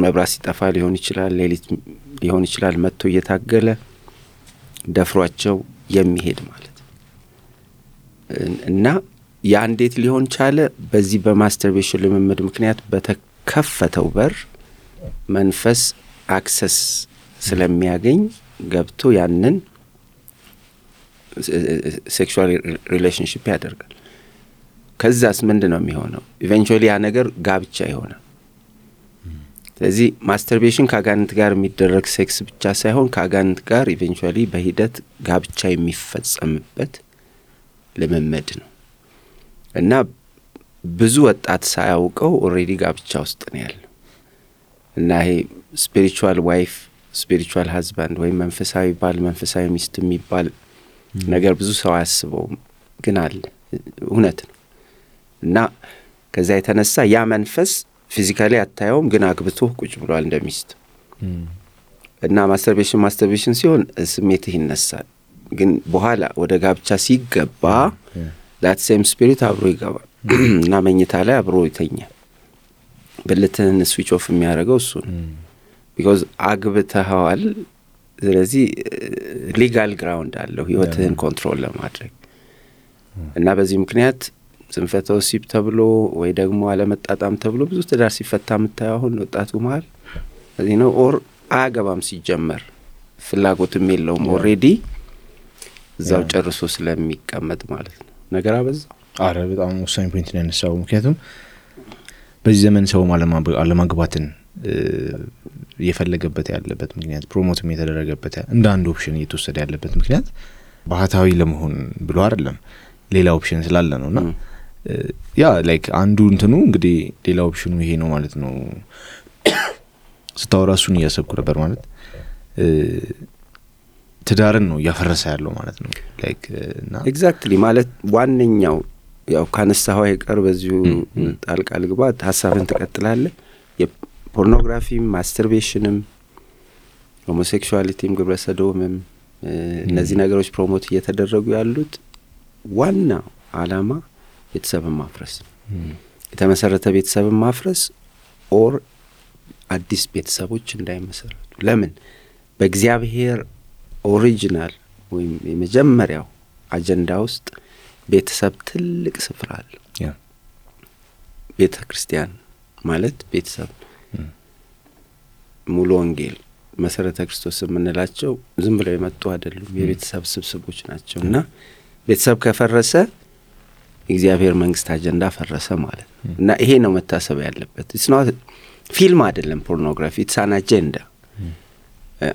መብራት ሲጠፋ ሊሆን ይችላል ሌሊት ሊሆን ይችላል መጥቶ እየታገለ ደፍሯቸው የሚሄድ ማለት እና ያ እንዴት ሊሆን ቻለ በዚህ በማስተርቤሽን ልምምድ ምክንያት በተከፈተው በር መንፈስ አክሰስ ስለሚያገኝ ገብቶ ያንን ሴክሹዋል ሪሌሽንሺፕ ያደርጋል ከዛስ ምንድነው የሚሆነው ኢቨንቹዋሊ ያ ነገር ጋብቻ ይሆናል ስለዚህ ማስተርቤሽን ከአጋንንት ጋር የሚደረግ ሴክስ ብቻ ሳይሆን ከአጋንንት ጋር ኢቨንቹዋሊ በሂደት ጋብቻ የሚፈጸምበት ልምምድ ነው እና ብዙ ወጣት ሳያውቀው ኦሬዲ ጋብቻ ውስጥ ነው ያለው እና ይሄ ስፒሪቹዋል ዋይፍ ስፒሪቹዋል ሃዝባንድ ወይ መንፈሳዊ ባል መንፈሳዊ ሚስት የሚባል ነገር ብዙ ሰው ያስበው ግን አለ እውነት ነው እና ከዛ የተነሳ ያ መንፈስ ፊዚካሊ አታየውም ግን አግብቶ ቁጭ ብሏል እንደሚስት እና ማስተርቤሽን ሲሆን ስሜትህ ይነሳል ግን በኋላ ወደ ጋብቻ ሲገባ that same spirit አብሮ ይገባል እና መኝታ ላይ አብሮ ይተኛል ብልትህን ስዊች ኦፍ የሚያደርገው እሱ ነው because አግብተኸዋል ስለዚህ ሊጋል ግራውንድ አለው ህይወትህን ኮንትሮል ለማድረግ እና በዚህ ምክንያት ስንፈተ ወሲብ ተብሎ ወይ ደግሞ አለመጣጣም ተብሎ ብዙ ትዳር ሲፈታ የምታየው አሁን ወጣቱ መሃል እዚህ ነው ኦር አያገባም ሲጀመር ፍላጎትም የለውም ኦሬዲ እዛው ጨርሶ ስለሚቀመጥ ማለት ነው ነገር አበዛው አረ በጣም ወሳኝ ፖይንት ነው ያነሳው ምክንያቱም በዚህ ዘመን ሰው አለማግባትን የፈለገበት ያለበት ምክንያት ፕሮሞትም የተደረገበት እንደ አንድ ኦፕሽን እየተወሰደ ያለበት ምክንያት ባህታዊ ለመሆን ብሎ አይደለም ሌላ ኦፕሽን ስላለ ነውና ያ ላይክ አንዱ እንትኑ እንግዲህ ሌላ ኦፕሽኑ ይሄ ነው ማለት ነው ስታወራሱን ያሰብኩ ነበር ማለት ትዳርን ነው ያፈረሰ ያለው ማለት ነው ላይክ እና ኤግዛክትሊ ማለት ዋንኛው ያው ካነሳው አይቀር በዚሁ ጣልቃል ግባት ሐሳብን ተቀጥላለህ የፖርኖግራፊ ማስተርቤሽንም ሆሞሴክሹዋሊቲም ግብረሰዶምም እነዚህ ነገሮች ፕሮሞት እየተደረጉ ያሉት ዋና አላማ ቤተሰብን ማፍረስ የተመሰረተ ቤተሰብን ማፍረስ ኦር አዲስ ቤተሰቦች እንዳይመሰረቱ ለምን በእግዚአብሔር ኦሪጂናል ወይም የመጀመሪያው አጀንዳ ውስጥ ቤተሰብ ትልቅ ስፍራ አለው ቤተክርስቲያን ማለት ቤተሰብ ሙሉ ወንጌል መሰረተ ክርስቶስ የምንላቸው ዝም ብለው የመጡ አይደሉም የቤተሰብ ስብስቦች ናቸውና ቤተሰብ ከፈረሰ እግዚአብሔር መንግስት አጀንዳ ፈረሰ ማለት ነው እና ይሄ ነው መታሰብ ያለበት it's not ፊልም አይደለም ፖርኖግራፊ it's an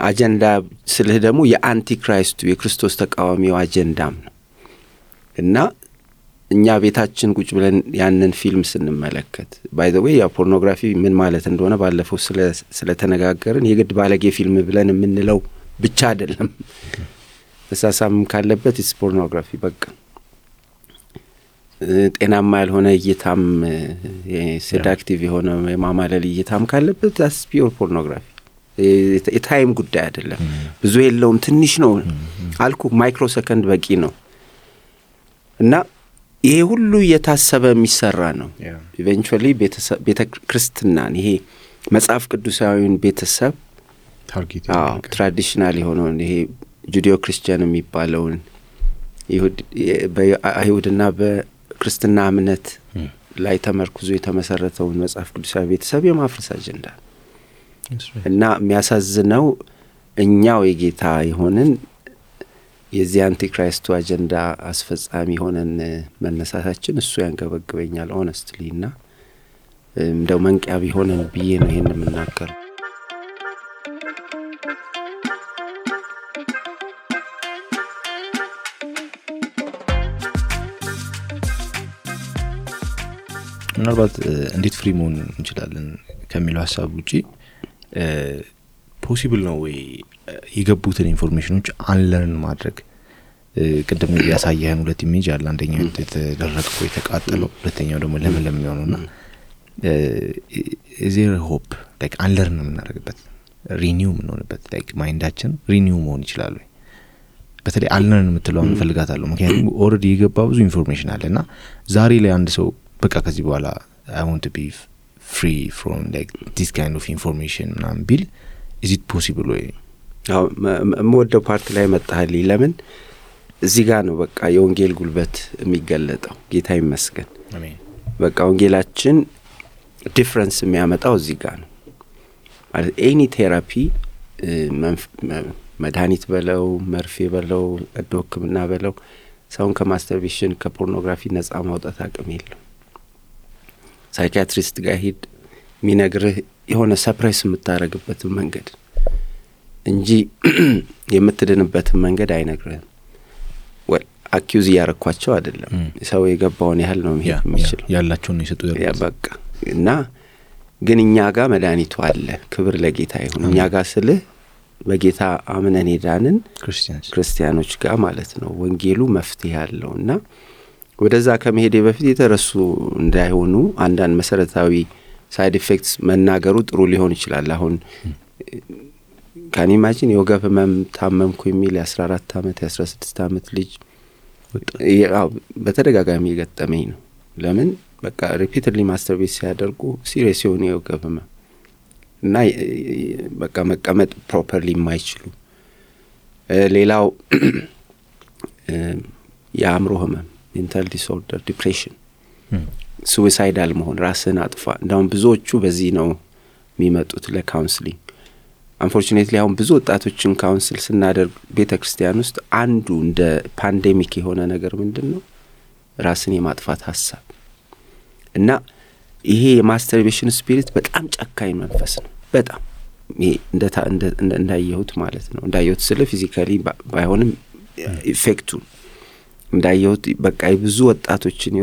አጀንዳ ስለህ ደግሞ የአንቲክራይስቱ የክርስቶስ ተቃዋሚው አጀንዳም ነው እና እኛ ቤታችን ቁጭ ብለን ያንን ፊልም ስንመለከት by the way ያ ፖርኖግራፊ ምን ማለት እንደሆነ ባለፈው ስለተነጋገርን የግድ ባለጌ ፊልም ብለን የምንለው ብቻ አይደለም ተሳሳም ካለበት it's pornography በቃ ጤናማ ያልሆነ እይታም ሴዳክቲቭ የሆነ የማማለል እይታም ካለበት that's pure pornography የታይም ጉዳይ አይደለም ብዙ የለውም ትንሽ ነው አልኩ ማይክሮ ሰከንድ በቂ ነው እና ይሄ ሁሉ የታሰበ የሚሰራ ነው ኢቨንቹዋሊ ቤተክርስቲያናን ይሄ መጽሐፍ ቅዱሳዊን ቤተሰብ ታርጌት ትራዲሽናል የሆነው ይሄ ጁዲዮ ክርስቲያን የሚባለውን በአይሁድና በክርስትና እምነት ላይ ተመርኩዞ የተመሰረተውን መጽሐፍ ቅዱሳዊ ቤተሰብ የማፍረስ አጀንዳ እና የሚያሳዝነው እኛው የጌታ የሆነን የዚህ አንቲክራይስቱ አጀንዳ አስፈጻሚ ሆነን መነሳታችን እሱ ያንገበግበኛል ሆነስትሊ እና እንደው መንቂያ ቢሆነን ብዬ ነው ይሄን የምናገር ምናልባት እንዴት ፍሪ መሆን እንችላለን ከሚለው ሐሳብ ውጪ ፖሲብል ነው ወይ የገቡትን ኢንፎርሜሽኖች አንለርን ማድረግ ቅድም ያሳየህን ሁለት ኢሜጅ አለ አንደኛው የተደረቀው የተቃጠለው ሁለተኛው ደግሞ ለምለም የሚሆነውና ዜር ሆፕ ላይክ አንለርን የምናደርግበት ሪኒው የምንሆንበት ላይክ ማይንዳችን ሪኒው መሆን ይችላል ወይ በተለይ አንለርን የምትለውን እንፈልጋታለሁ ምክንያቱም ኦልሬዲ የገባ ብዙ ኢንፎርሜሽን አለና ዛሬ ላይ አንድ ሰው በቃ ከዚህ በኋላ I want to be free from like this kind of information ምናምን ቢል is it possible ወይ ወደ ፓርት ላይ መጣህልኝ ለምን እዚህ ጋር ነው በቃ የወንጌል ጉልበት የሚገለጠው ጌታ ይመስገን አሜን በቃ ወንጌላችን ዲፈረንስ የሚያመጣው እዚህ ጋር ነው ማለት ኤኒ ቴራፒ መድኃኒት በለው መርፌ በለው ዶክምና በለው ሰውን ከማስተርቤሽን ከፖርኖግራፊ ነፃ ማውጣት አቅም የለው ሳይኪያትሪስት ጋር ሄድ ሚነግርህ የሆነ ሰፕሬስ የምታረግበት መንገድ እንጂ የምትድንበት መንገድ አይነግርህም አኪዩዝ ያረኳቸው አይደለም ሰው የገባውን ያህል ነው የሚችል ያላቸውን ይሰጡ ያ በቃ እና ግን እኛ ጋር መድኃኒቱ አለ ክብር ለጌታ ይሁን እኛ ጋር ስልህ በጌታ አምነን ሄዳንን ክርስቲያኖች ጋር ማለት ነው ወንጌሉ መፍትሄ ያለውና ወደዛ ከመሄዴ በፊት የተረሱ እንዳይሆኑ አንዳንድ መሰረታዊ ሳይድ ኢፌክትስ መናገሩ ጥሩ ሊሆን ይችላል አሁን ካን ኢማጂን የወገብ ህመም ታመምኩ የሚል 14 አመት 16 አመት ልጅ በተደጋጋሚ የገጠመኝ ነው ለምን በቃ ሪፒትድሊ ማስተርቤት ሲያደርጉ ሲሪየስ የሆነ የወገብ ህመም እና በቃ መቀመጥ ፕሮፐርሊ የማይችሉ ሌላው የአእምሮ ህመም ሜንታል ዲስኦርደር ዲፕሬሽን ሱሳይዳል መሆን ራስን አጥፋ እንዳውም ብዙዎቹ በዚህ ነው የሚመጡት ለካውንስሊንግ አንፎርቹኔትሊ አሁን ብዙ ወጣቶችን ካውንስል ስናደርግ ቤተክርስቲያን ውስጥ አንዱ እንደ ፓንዴሚክ የሆነ ነገር ምንድነው ራስን የማጥፋት ሐሳብ እና ይሄ የማስተርቤሽን ስፒሪት በጣም ጨካኝ መንፈስ ነው በጣም ይሄ እንዳየሁት ማለት ነው እንዳየሁት ስለ ፊዚካሊ ባይሆንም ኢፌክቱ እንዳየሁት በቃ ብዙ ወጣቶችን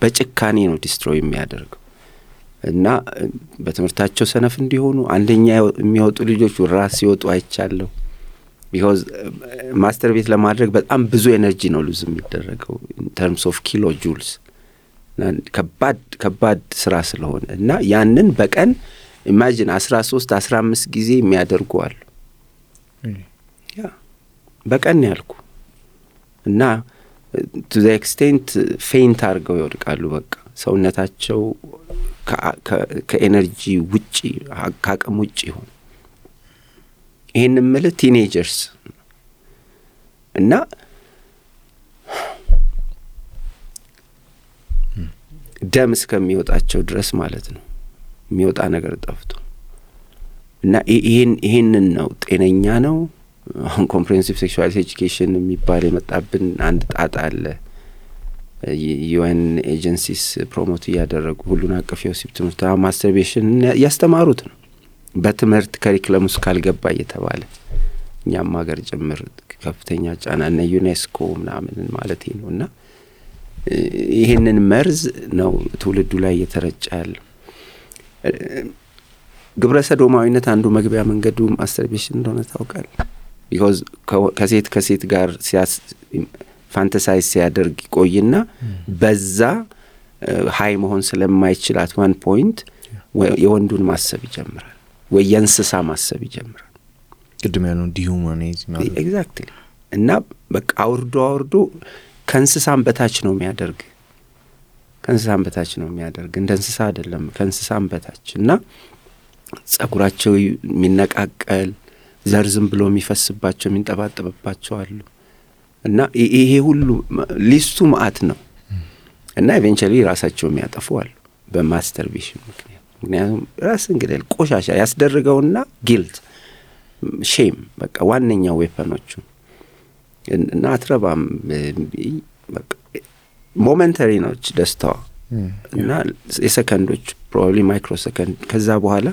በጭካኔ ነው ዲስትሮይ የሚያደርገው እና በትምህርታቸው ሰነፍ እንዲሆኑ አንደኛ የሚወጡ ልጆች ራስ ሲወጡ አይቻለሁ because ማስተርቤት ለማድረግ በጣም ብዙ ኤነርጂ ነው ሉዝ የሚደረገው in terms of kilojoules ከባድ ስራ ስለሆነ እና ያንን በቀን ኢማጂን 13 15 ጊዜ የሚያደርጉ አሉ ያ በቀን ያልኩ እና to the extent faint አርገው ይወድቃሉ በቃ ሰውነታቸው ከኤነርጂ ውጪ ከአቅም ውጪ ሆነ ይሄን ማለት ቲኔጀርስ እና ደም እስከሚወጣቸው ድረስ ማለት ነው የሚወጣ ነገር ጠፍቶ እና ይሄንን ነው ጤነኛ ነው አሁን ኮምፕሬሄንሲቭ ሴክሹዋል ኤጁኬሽን የሚባል የመጣብን አንድ ጣጣ አለ ዩኤን ኤጀንሲስ ፕሮሞት ያደረጉ ሁሉን አቀፍ የወሲብ ትምህርት ማስተርቤሽን ያስተማሩት ነው በትምህርት ካሪኩለም ውስጥ ካልገባ እየተባለ እኛም ሀገር ጭምር ከፍተኛ ጫና እና ዩኔስኮ ምናምን ማለት ነውና ይሄንን መርዝ ነው ትውልዱ ላይ እየተረጨ ያለው ግብረ ሰዶማዊነት አንዱ መግቢያ መንገዱ ማስተርቤሽን እንደሆነ ታውቃል because ከሴት ጋር ፋንታሳይዝ ሲያደርግ ቆይና በዛ ሃይ መሆን ስለማይችል at one point የወንዱን ማሰብ ይጀምራል ወይ የእንስሳ ማሰብ ይጀምራል። ቅድም ያለው ዲሁማኒዝም ማለት ኤግዛክትሊ። እና በቃ አውርዶ ከእንስሳም በታች ነው የሚያደርግ እንደ እንስሳ አይደለም፣ ከእንስሳም በታች። እና ጸጉራቸው የሚነቃቀል ዘር ዝም ብሎ የሚፈስባቸው የሚንጠባጠብባቸው አሉ። እና ይሄ ሁሉ ሊስቱ መዓት ነው። እና ኢቬንቹዋሊ ራሳቸው የሚያጠፉ አሉ በማስተርቤሽን ምክንያቱም ራስን ግደል ቆሻሻ ያስደርገውና ጊልት ሼም በቃ ዋነኛው ዌፐኖቹ። እና አትረባም በቃ ሞመንተሪ ነች ደስታዋ እና የሰከንዶች ፕሮባብሊ ማይክሮ ሰከንድ። ከዛ በኋላ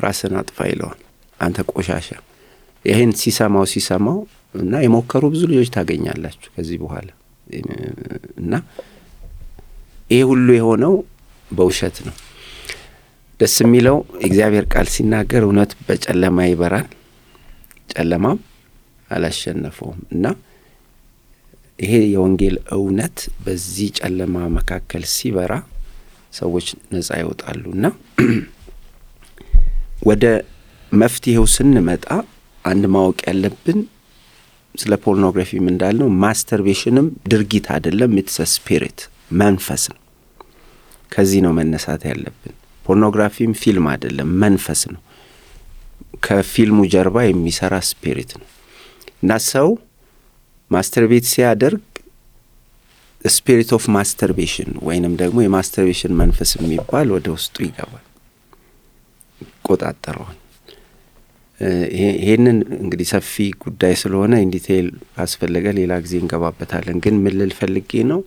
ራስን አጥፋ ይለዋል አንተ ቆሻሻ። ይሄን ሲሰማው እና የሞከሩ ብዙ ልጆች ታገኛላችሁ ከዚህ በኋላ። እና ይሄ ሁሉ የሆነው በውሸት ነው። ደስ የሚለው እግዚአብሔር ቃል ሲናገር እውነት በጨለማ ይበራል፣ ጨለማም አላሸነፈውም። እና ይሄ የወንጌል እውነት በዚህ ጨለማ መካከል ሲበራ ሰዎች ነፃ ይወጣሉ። እና ወደ መፍትሄው ስንመጣ አንድ ማወቅ ያለብን ስለ ፖርኖግራፊም እንዳልነው ማስተርቤሽንም ድርጊት አይደለም፣ ኢትስ ስፒሪት መንፈስ ነው። ከዚህ ነው መነሳት ያለብን። ፖርኖግራፊም ፊልም አይደለም፣ መንፈስ ነው። ከፊልሙ ጀርባ የሚሰራ ስፒሪት ነው። እና ሰው ማስተርቤት ሲያደርግ ስፒሪት ኦፍ ማስተርቤሽን ወይንም ደግሞ የማስተርቤሽን መንፈስ የሚባል ወደ ውስጡ ይገባል፣ ይቆጣጠረዋል። ይሄንን እንግዲህ ሰፊ ጉዳይ ስለሆነ ኢን ዲቴይል ካስፈለገ ሌላ ጊዜ እንገባበታለን። ግን ምን ልል ፈልጌ ነው፣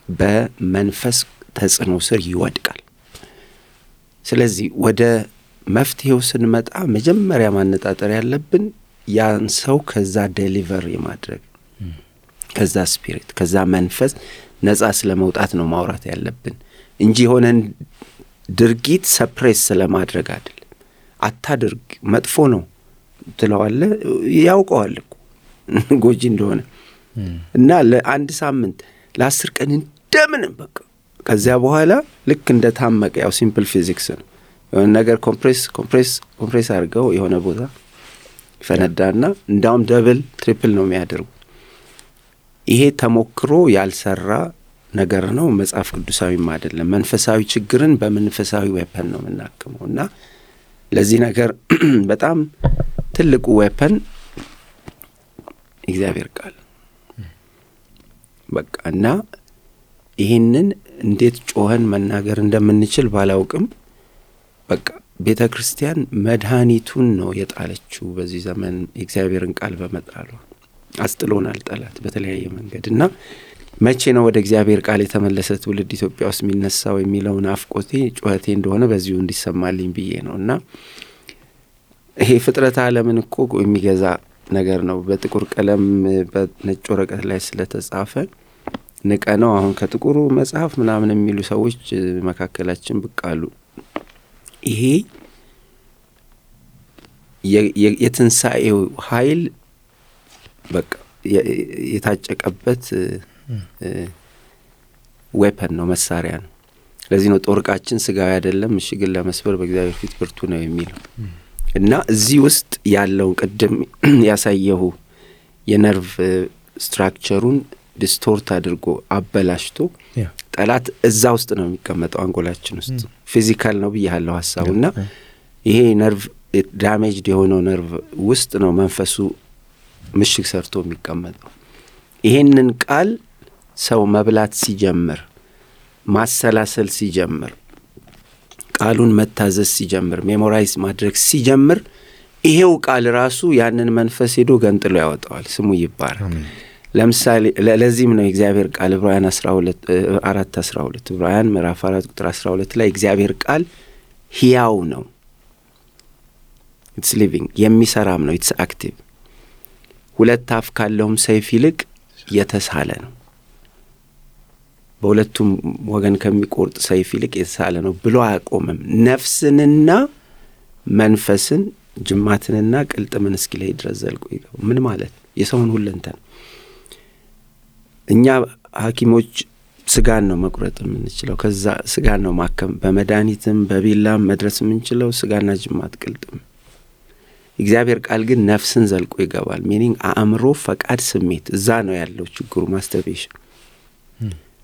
በመንፈስ ተጽዕኖ ስር ይወድቃል። ስለዚህ ወደ መፍትሄው ስንመጣ መጀመሪያ ማነጣጠር ያለብን ያን ሰው ከዛ ዴሊቨር የማድረግ ከዛ ስፒሪት ከዛ መንፈስ ነፃ ስለመውጣት ነው ማውራት ያለብን እንጂ የሆነን ድርጊት ሰፕሬስ ስለማድረግ አይደለም። አታድርግ መጥፎ ነው ትለዋለህ፣ ያውቀዋል እኮ ጎጂ እንደሆነ። እና ለአንድ ሳምንት ለ10 ቀን እንደምንም በቃ ከዚያ በኋላ ልክ እንደ ታመቀ ያው ሲምፕል ፊዚክስ ነው። የሆነ ነገር ኮምፕሬስ አድርገው የሆነ ቦታ ፈነዳና እንዳውም ደብል ትሪፕል ነው የሚያደርጉ። ይሄ ተሞክሮ ያልሰራ ነገር ነው፣ መጽሐፍ ቅዱሳዊም አይደለም። መንፈሳዊ ችግርን በመንፈሳዊ ዌፐን ነው የምናክመው። እና ለዚህ ነገር በጣም ትልቁ ዌፐን እግዚአብሔር ቃል በቃ። እና ይሄንን እንዴት ጮኸን መናገር እንደምንችል ባላውቅም በቃ ቤተ ክርስቲያን መድኃኒቱን ነው የጣለችው በዚህ ዘመን የእግዚአብሔርን ቃል በመጣሏ። አስጥሎናል ጠላት በተለያየ መንገድ። እና መቼ ነው ወደ እግዚአብሔር ቃል የተመለሰ ትውልድ ኢትዮጵያ ውስጥ የሚነሳው የሚለውን አፍቆቴ ጩኸቴ እንደሆነ በዚሁ እንዲሰማልኝ ብዬ ነው። እና ይሄ ፍጥረት ዓለምን እኮ የሚገዛ ነገር ነው። በጥቁር ቀለም በነጭ ወረቀት ላይ ስለተጻፈ ንቀ ነው አሁን ከጥቁሩ መጽሐፍ ምናምን የሚሉ ሰዎች መካከላችን ብቅ አሉ። ይሄ የትንሣኤው ኃይል በቃ የታጨቀበት ዌፐን ነው፣ መሳሪያ ነው። ለዚህ ነው ጦርቃችን ስጋዊ አይደለም ምሽግን ለመስበር በእግዚአብሔር ፊት ብርቱ ነው የሚለው። እና እዚህ ውስጥ ያለው ቅድም ያሳየሁ የነርቭ ስትራክቸሩን ዲስቶርት አድርጎ አበላሽቶ ጠላት እዛ ውስጥ ነው የሚቀመጠው አንጎላችን ውስጥ። ፊዚካል ነው ብያለሁ ሐሳቡና ይሄ ነርቭ ዳሜጅድ የሆነው ነርቭ ውስጥ ነው መንፈሱ ምሽግ ሰርቶ የሚቀመጠው። ይሄንን ቃል ሰው መብላት ሲጀምር፣ ማሰላሰል ሲጀምር፣ ቃሉን መታዘዝ ሲጀምር፣ ሜሞራይዝ ማድረግ ሲጀምር ይሄው ቃል ራሱ ያንን መንፈስ ሄዶ ገንጥሎ ያወጣዋል። ስሙ ይባረክ። ለምሳሌ ለዚህም ነው እግዚአብሔር ቃል ዕብራውያን 4:12 ዕብራውያን ምዕራፍ 4 ቁጥር 12 ላይ እግዚአብሔር ቃል ሕያው ነው፣ ኢትስ ሊቪንግ የሚሰራም ነው፣ ኢትስ አክቲቭ፣ ሁለት አፍ ካለውም ሰይፍ ይልቅ የተሳለ ነው፣ በሁለቱም ወገን ከሚቆርጥ ሰይፍ ይልቅ የተሳለ ነው ብሎ አያቆምም። ነፍስንና መንፈስን ጅማትንና ቅልጥምን እስኪለይ ድረስ ዘልቆ ይገባል። ምን ማለት? የሰውን ሁለንተና እኛ ሐኪሞች ስጋን ነው መቁረጥ የምንችለው። ከዛ ስጋን ነው ማከም በመድኃኒትም በቢላም መድረስ የምንችለው ስጋና ጅማት ቅልጥም። እግዚአብሔር ቃል ግን ነፍስን ዘልቆ ይገባል። ሚኒንግ አእምሮ፣ ፈቃድ፣ ስሜት እዛ ነው ያለው ችግሩ። ማስተርቤሽን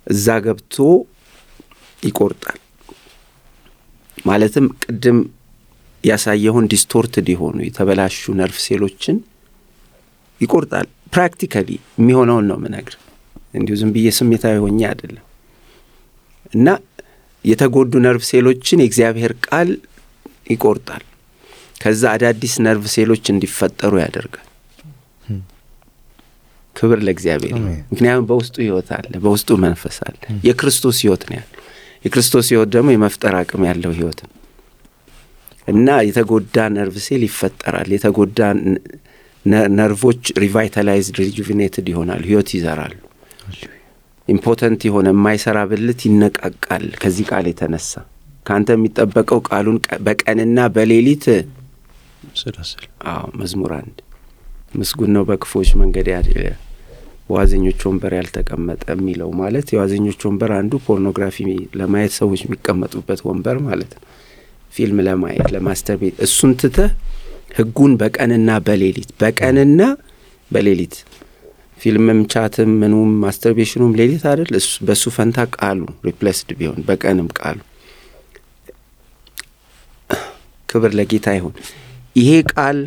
እዛ ገብቶ ይቆርጣል። ማለትም ቅድም ያሳየውን ዲስቶርትድ የሆኑ የተበላሹ ነርቭ ሴሎችን ይቆርጣል። ፕራክቲካሊ የሚሆነውን ነው ምነግር፣ እንዲሁ ዝም ብዬ ስሜታዊ ሆኜ አይደለም። እና የተጎዱ ነርቭ ሴሎችን የእግዚአብሔር ቃል ይቆርጣል። ከዛ አዳዲስ ነርቭ ሴሎች እንዲፈጠሩ ያደርጋል። ክብር ለእግዚአብሔር። ምክንያቱም በውስጡ ሕይወት አለ፣ በውስጡ መንፈስ አለ። የክርስቶስ ሕይወት ነው ያለው። የክርስቶስ ሕይወት ደግሞ የመፍጠር አቅም ያለው ሕይወት ነው። እና የተጎዳ ነርቭ ሴል ይፈጠራል። የተጎዳ ነርቮች ሪቫይታላይዝድ ሪጁቪኔትድ ይሆናሉ፣ ሕይወት ይዘራሉ። ኢምፖተንት የሆነ የማይሰራ ብልት ይነቃቃል። ከዚህ ቃል የተነሳ ካንተ የሚጠበቀው ቃሉን በቀንና በሌሊት ስራስል። መዝሙር 1 ምስጉን ነው በክፎች መንገድ ያለ በዋዘኞች ወንበር ያልተቀመጠ የሚለው ማለት የዋዘኞች ወንበር አንዱ ፖርኖግራፊ ለማየት ሰዎች የሚቀመጡበት ወንበር ማለት ነው። ፊልም ለማየት ለማስተርቤት። እሱን ትተህ ሕጉን በቀንና በሌሊት በቀንና በሌሊት ፊልምም ቻትም ምኑም ማስተርቤሽኑም ሌሊት አይደል? በሱ ፈንታ ቃሉ ሪፕሌስድ ቢሆን በቀንም ቃሉ። ክብር ለጌታ ይሁን። ይሄ ቃል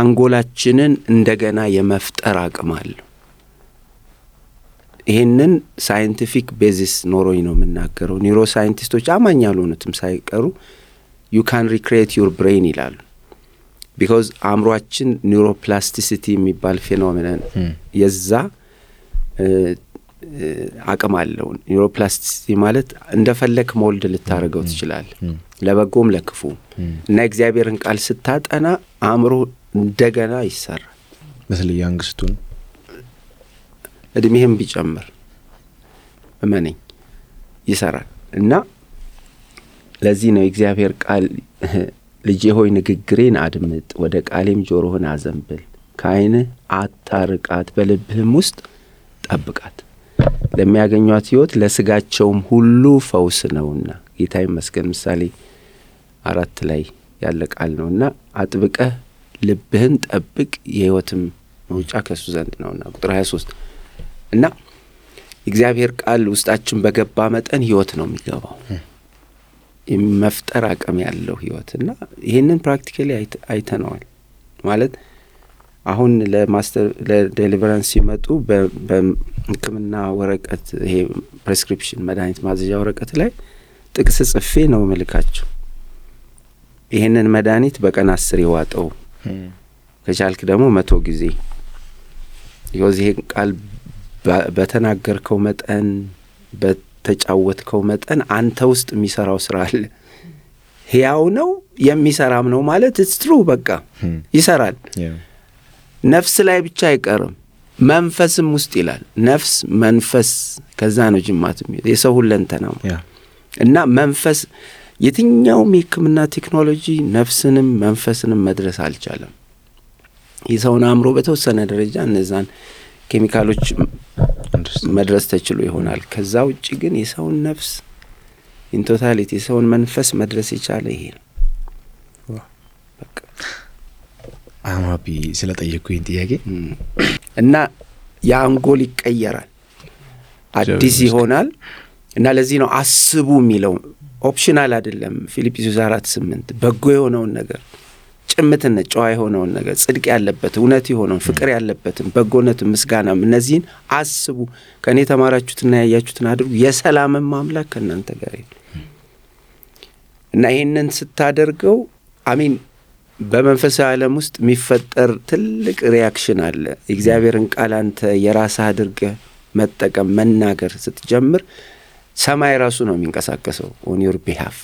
አንጎላችንን እንደገና የመፍጠር አቅም አለው። ይሄንን ሳይንቲፊክ ቤዚስ ኖሮኝ ነው የምናገረው። ኒውሮ ሳይንቲስቶች አማኝ ያልሆኑትም ሳይቀሩ you can recreate your brain ይላሉ። ቢኮዝ አእምሯችን ኒውሮፕላስቲሲቲ የሚባል ፌኖሜናን የዛ አቅም አለው። ኒውሮፕላስቲሲቲ ማለት እንደፈለክ ሞልድ ልታረገው ትችላለህ፣ ለበጎም ለክፉ። እና እግዚአብሔርን ቃል ስታጠና አእምሮ እንደገና ይሰራል። በተለይ አንግስቱን እድሜህም ቢጨምር እመነኝ ይሰራል። እና ለዚህ ነው እግዚአብሔር ቃል ልጄ ሆይ ንግግሬን አድምጥ፣ ወደ ቃሌም ጆሮህን አዘንብል፣ ከዓይንህ አታርቃት፣ በልብህም ውስጥ ጠብቃት፣ ለሚያገኟት ሕይወት ለስጋቸውም ሁሉ ፈውስ ነውና። ጌታ ይመስገን። ምሳሌ 4 ላይ ያለ ቃል ነውና አጥብቀህ ልብህን ጠብቅ፣ የሕይወትም መውጫ ከሱ ዘንድ ነውና። ቁጥር 23 እና እግዚአብሔር ቃል ውስጣችን በገባ መጠን ሕይወት ነው የሚገባው፣ የመፍጠር አቅም ያለው ሕይወት። እና ይሄንን ፕራክቲካሊ አይተነዋል። ማለት አሁን ለዴሊቨራንስ ሲመጡ በሕክምና ወረቀት ይሄ ፕሬስክሪፕሽን መድኃኒት ማዘዣ ወረቀት ላይ ጥቅስ ጽፌ ነው መልካቸው። ይሄንን መድኃኒት በቀን 10 ይዋጠው፣ ከቻልክ ደግሞ 100 ጊዜ። ይሄ ቃል በተናገርከው መጠን በተጫወትከው መጠን አንተ ውስጥ የሚሰራው ስራ አለ። ሕያው ነው የሚሰራም ነው ማለት it's true። በቃ ይሰራል። ነፍስ ላይ ብቻ አይቀርም፣ መንፈስም ውስጥ ይላል። ነፍስ መንፈስ፣ ከዛ ነው ጅማት የሰው ሁለንተና እና መንፈስ። የትኛውም የሕክምና ቴክኖሎጂ ነፍስንም መንፈስንም መድረስ አልቻለም። የሰውን አእምሮ በተወሰነ ደረጃ እነዛን ኬሚካሎች መድረስ ተችሎ ይሆናል። ከዛ ውጪ ግን የሰውን ነፍስ ኢን ቶታሊቲ የሰውን መንፈስ መድረስ የቻለ ይሄ ነው። በቃ አማቢ ስለጠየቁኝ ጥያቄ እና የአንጎል ይቀየራል፣ አዲስ ይሆናል። እና ለዚህ ነው አስቡ የሚለው ኦፕሽናል አይደለም። ፊልጵስዩስ 4:8 በጎ የሆነውን ነገር፣ ጭምትነት፣ ጨዋ የሆነውን ነገር፣ ጽድቅ ያለበት፣ እውነት የሆነውን፣ ፍቅር ያለበትን፣ በጎነትን፣ ምስጋናም እነዚህን አስቡ፣ ከእኔ የተማራችሁትና ያያችሁትን አድርጉ፣ የሰላምም አምላክ ከእናንተ ጋር ይሁን። እና ይሄንን ስታደርገው አሚን በመንፈሳዊ ዓለም ውስጥ የሚፈጠር ትልቅ ሪያክሽን አለ። እግዚአብሔርን ቃል አንተ የራስህ አድርገህ መጠቀም መናገር ስትጀምር ሰማይ ራሱ ነው የሚንቀሳቀሰው on your behalf።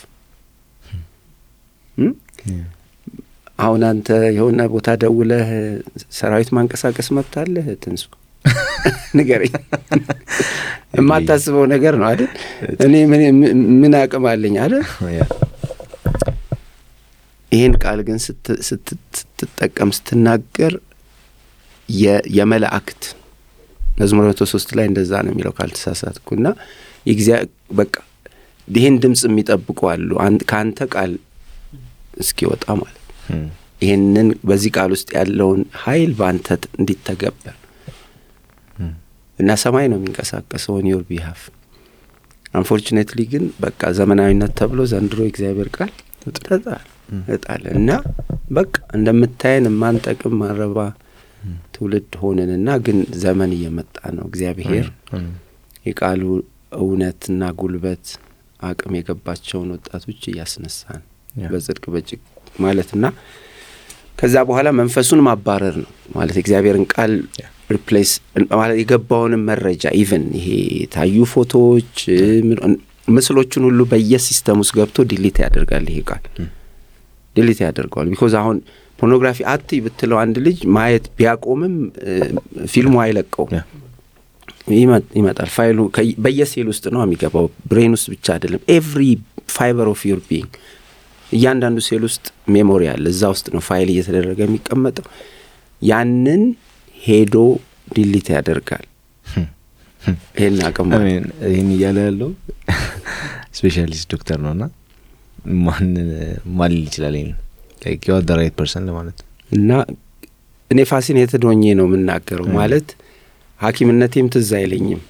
አሁን አንተ የሆነ ቦታ ደውለህ ሰራዊት ማንቀሳቀስ መብታለህ? ትንሱ ንገረኝ። የማታስበው ነገር ነው አይደል? እኔ ምን አቅም አለኝ አይደል? ይሄን ቃል ግን ስትጠቀም ስትናገር የመላእክት መዝሙር 103 ላይ እንደዛ ነው የሚለው ካልተሳሳትኩና በቃ ይሄን ድምጽ የሚጠብቁ አሉ ካንተ ቃል እስኪወጣ ማለት ይሄንን በዚህ ቃል ውስጥ ያለውን ኃይል ባንተ እንዲተገበር እና ሰማይ ነው የሚንቀሳቀሰው on your behalf unfortunately ግን በቃ ዘመናዊነት ተብሎ ዘንድሮ እግዚአብሔር ቃል ተጣለ እና በቃ እንደምታየን ማንጠቅም ማረባ ትውልድ ሆነንና ግን ዘመን እየመጣ ነው እግዚአብሔር የቃሉ እውነትና ጉልበት አቅም የገባቸውን ወጣቶች እያስነሳን በጽድቅ በጭቅ ማለትና ከዛ በኋላ መንፈሱን ማባረር ነው ማለት እግዚአብሔርን ቃል ሪፕሌስ ማለት የገባውን መረጃ ኢቭን ይሄ ታዩ ፎቶዎች ምስሎችን ሁሉ በየሲስተም ውስጥ ገብቶ ዲሊት ያደርጋል ይሄ ቃል ዲሊት ያደርጋል because አሁን ፖርኖግራፊ አትይ ብትለው አንድ ልጅ ማየት ቢያቆምም ፊልሙ አይለቀው ይመጣል ፋይሉ በየሴል ውስጥ ነው የሚገባው ብሬን ውስጥ ብቻ አይደለም every fiber of your being እያንዳንዱ ሴል ውስጥ ሜሞሪ አለ እዛ ውስጥ ነው ፋይል እየተደረገ የሚቀመጠው ያንን ሄዶ ዲሊት ያደርጋል ይሄን አቀም ይሄን ያለው ስፔሻሊስት ዶክተር ነውና ማን ይችላል like you are the right person ለማለት እና እኔ ፋሲኔትድ ሆኜ ነው የምናገረው ማለት ሐኪምነቴም ትዝ አይለኝም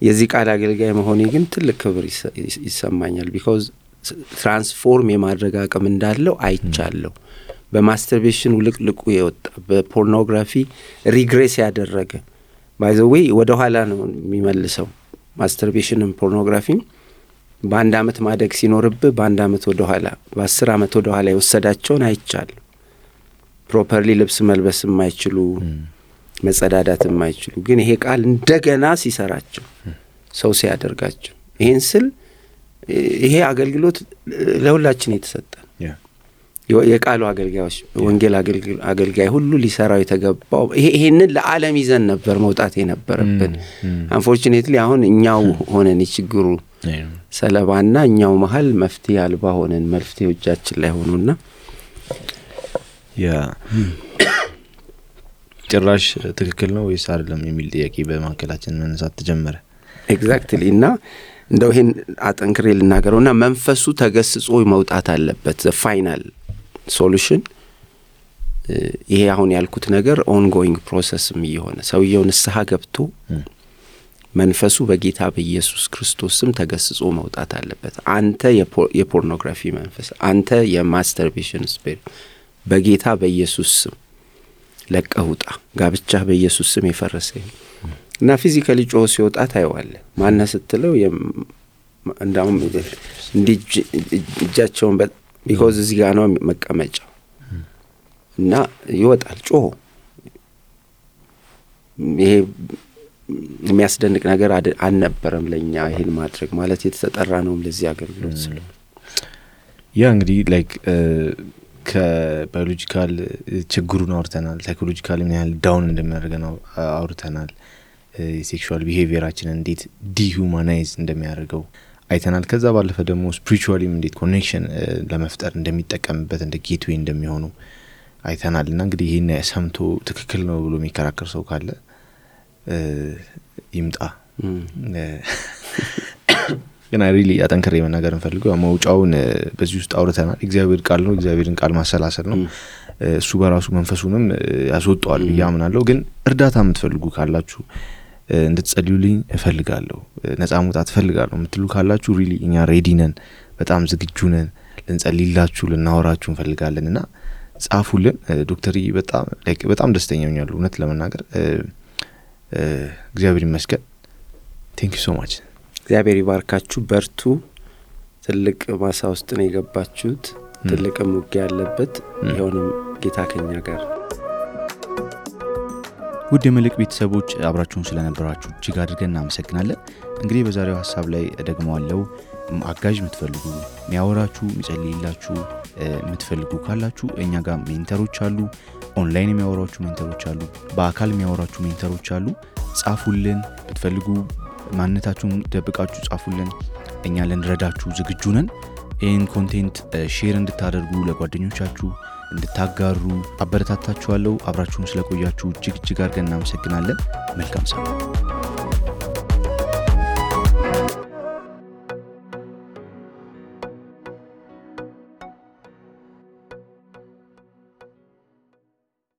የዚህ ቃል አገልጋይ መሆኔ ግን ትልቅ ክብር ይሰማኛል because ትራንስፎርም የማድረግ አቅም እንዳለው አይቻለሁ በማስተርቤሽን ውልቅልቁ የወጣ በፖርኖግራፊ ሪግሬስ ያደረገ by the way ወደ ኋላ ነው የሚመልሰው ማስተርቤሽንን ፖርኖግራፊን በአንድ አመት ማደግ ሲኖርብህ በአንድ አመት ወደ ኋላ በ10 አመት ወደ ኋላ የወሰዳቸውን አይቻለሁ ፕሮፐርሊ ልብስ መልበስ የማይችሉ መጸዳዳት የማይችሉ ግን ይሄ ቃል እንደገና ሲሰራቸው ሰው ሲያደርጋቸው ይሄን ስል ይሄ አገልግሎት ለሁላችን የተሰጠ የቃሉ አገልጋዮች ወንጌል አገልጋይ ሁሉ ሊሰራው የተገባው ይሄንን ለዓለም ይዘን ነበር መውጣት የነበረብን unfortunately አሁን እኛው ሆነን ይችግሩ ሰለባና እኛው መሃል መፍትሄ አልባ ሆነን መፍትሄው እጃችን ላይ ሆኖና ጭራሽ ትክክል ነው ወይስ አይደለም የሚል ጥያቄ በማከላችን መነሳት ተጀመረ ኤግዛክትሊ እና እንደው ይሄን አጠንክሬ ልናገረውና መንፈሱ ተገስጾ መውጣት አለበት the final solution ይሄ አሁን ያልኩት ነገር ongoing processም ይሆነ ሰውየው ንስሐ ገብቶ መንፈሱ በጌታ በኢየሱስ ክርስቶስም ተገስጾ መውጣት አለበት አንተ የፖርኖግራፊ መንፈስ አንተ የማስተርቤሽን ስፒሪት በጌታ በኢየሱስ ስም ለቀውጣ ጋብቻ በኢየሱስ ስም የፈረሰ እና ፊዚካሊ ጮህ ሲወጣ ታይዋለ ማን ስትለው እንዳውም እጃቸውን because እዚህ ጋር ነው መቀመጫው እና ይወጣል ጮህ ይሄ የሚያስደንቅ ነገር አልነበረም ለኛ ይሄን ማድረግ ማለት የተጠራ ነው ለዚህ አገልግሎት ስለ ያ እንግዲህ ላይክ ከባዮሎጂካል ችግሩን አውርተናል ሳይኮሎጂካሊ ምን ያህል ዳውን እንደሚያደርገን አውርተናል ሴክሹዋል ቢሄቪየራችንን እንዴት ዲሁማናይዝ እንደሚያደርገው አይተናል ከዛ ባለፈ ደግሞ ስፒሪቹዋሊም እንዴት ኮኔክሽን ለመፍጠር እንደሚጠቀምበት እንደ ጌትዌይ እንደሚሆኑ አይተናልና እንግዲህ ይሄን ሰምቶ ትክክል ነው ብሎ የሚከራከር ሰው ካለ ይምጣ ግን ሪሊ አጠንክሬ መናገር እንፈልገው መውጫውን በዚህ ውስጥ አውርተናል እግዚአብሔር ቃል ነው እግዚአብሔርን ቃል ማሰላሰል ነው እሱ በራሱ መንፈሱንም ያስወጣዋል ያምናለው ግን እርዳታ የምትፈልጉ ካላችሁ እንድትጸልዩልኝ እፈልጋለሁ ነፃ መውጣት እፈልጋለሁ የምትሉ ካላችሁ ሪሊ እኛ ሬዲ ነን በጣም ዝግጁ ነን ልንጸልይላችሁ ልናወራችሁ እንፈልጋለንና ጻፉልን ዶክተር በጣም ደስተኛ ሆኛለሁ እውነት ለመናገር እግዚአብሔር ይመስገን thank you so much እግዚአብሔር ይባርካችሁ በርቱ ትልቅ ማሳ ውስጥ ነው የገባችሁት ትልቅ ሙግ ያለበት ይሁንም ጌታ ከኛ ጋር ውድ የመልእክት ቤተሰቦች አብራችሁን ስለነበራችሁ እጅግ አድርገን እናመሰግናለን እንግዲህ በዛሬው ሐሳብ ላይ ደግሞ አለው አጋዥ የምትፈልጉ የሚያወራችሁ የሚጸልይላችሁ የምትፈልጉ ካላችሁ እኛ ጋር ሜንተሮች አሉ ኦንላይን የሚያወራችሁ ሜንተሮች አሉ በአካል የሚያወራችሁ ሜንተሮች አሉ ጻፉልን ብትፈልጉ ማንነታችሁን ደብቃችሁ ጻፉልን እኛ ልንረዳችሁ ዝግጁ ነን ይህን ኮንቴንት ሼር እንድታደርጉ ለጓደኞቻችሁ እንድታጋሩ አበረታታችኋለሁ። አብራችሁን ስለቆያችሁ እጅግ አድርገን እናመሰግናለን። መልካም ሳምንት።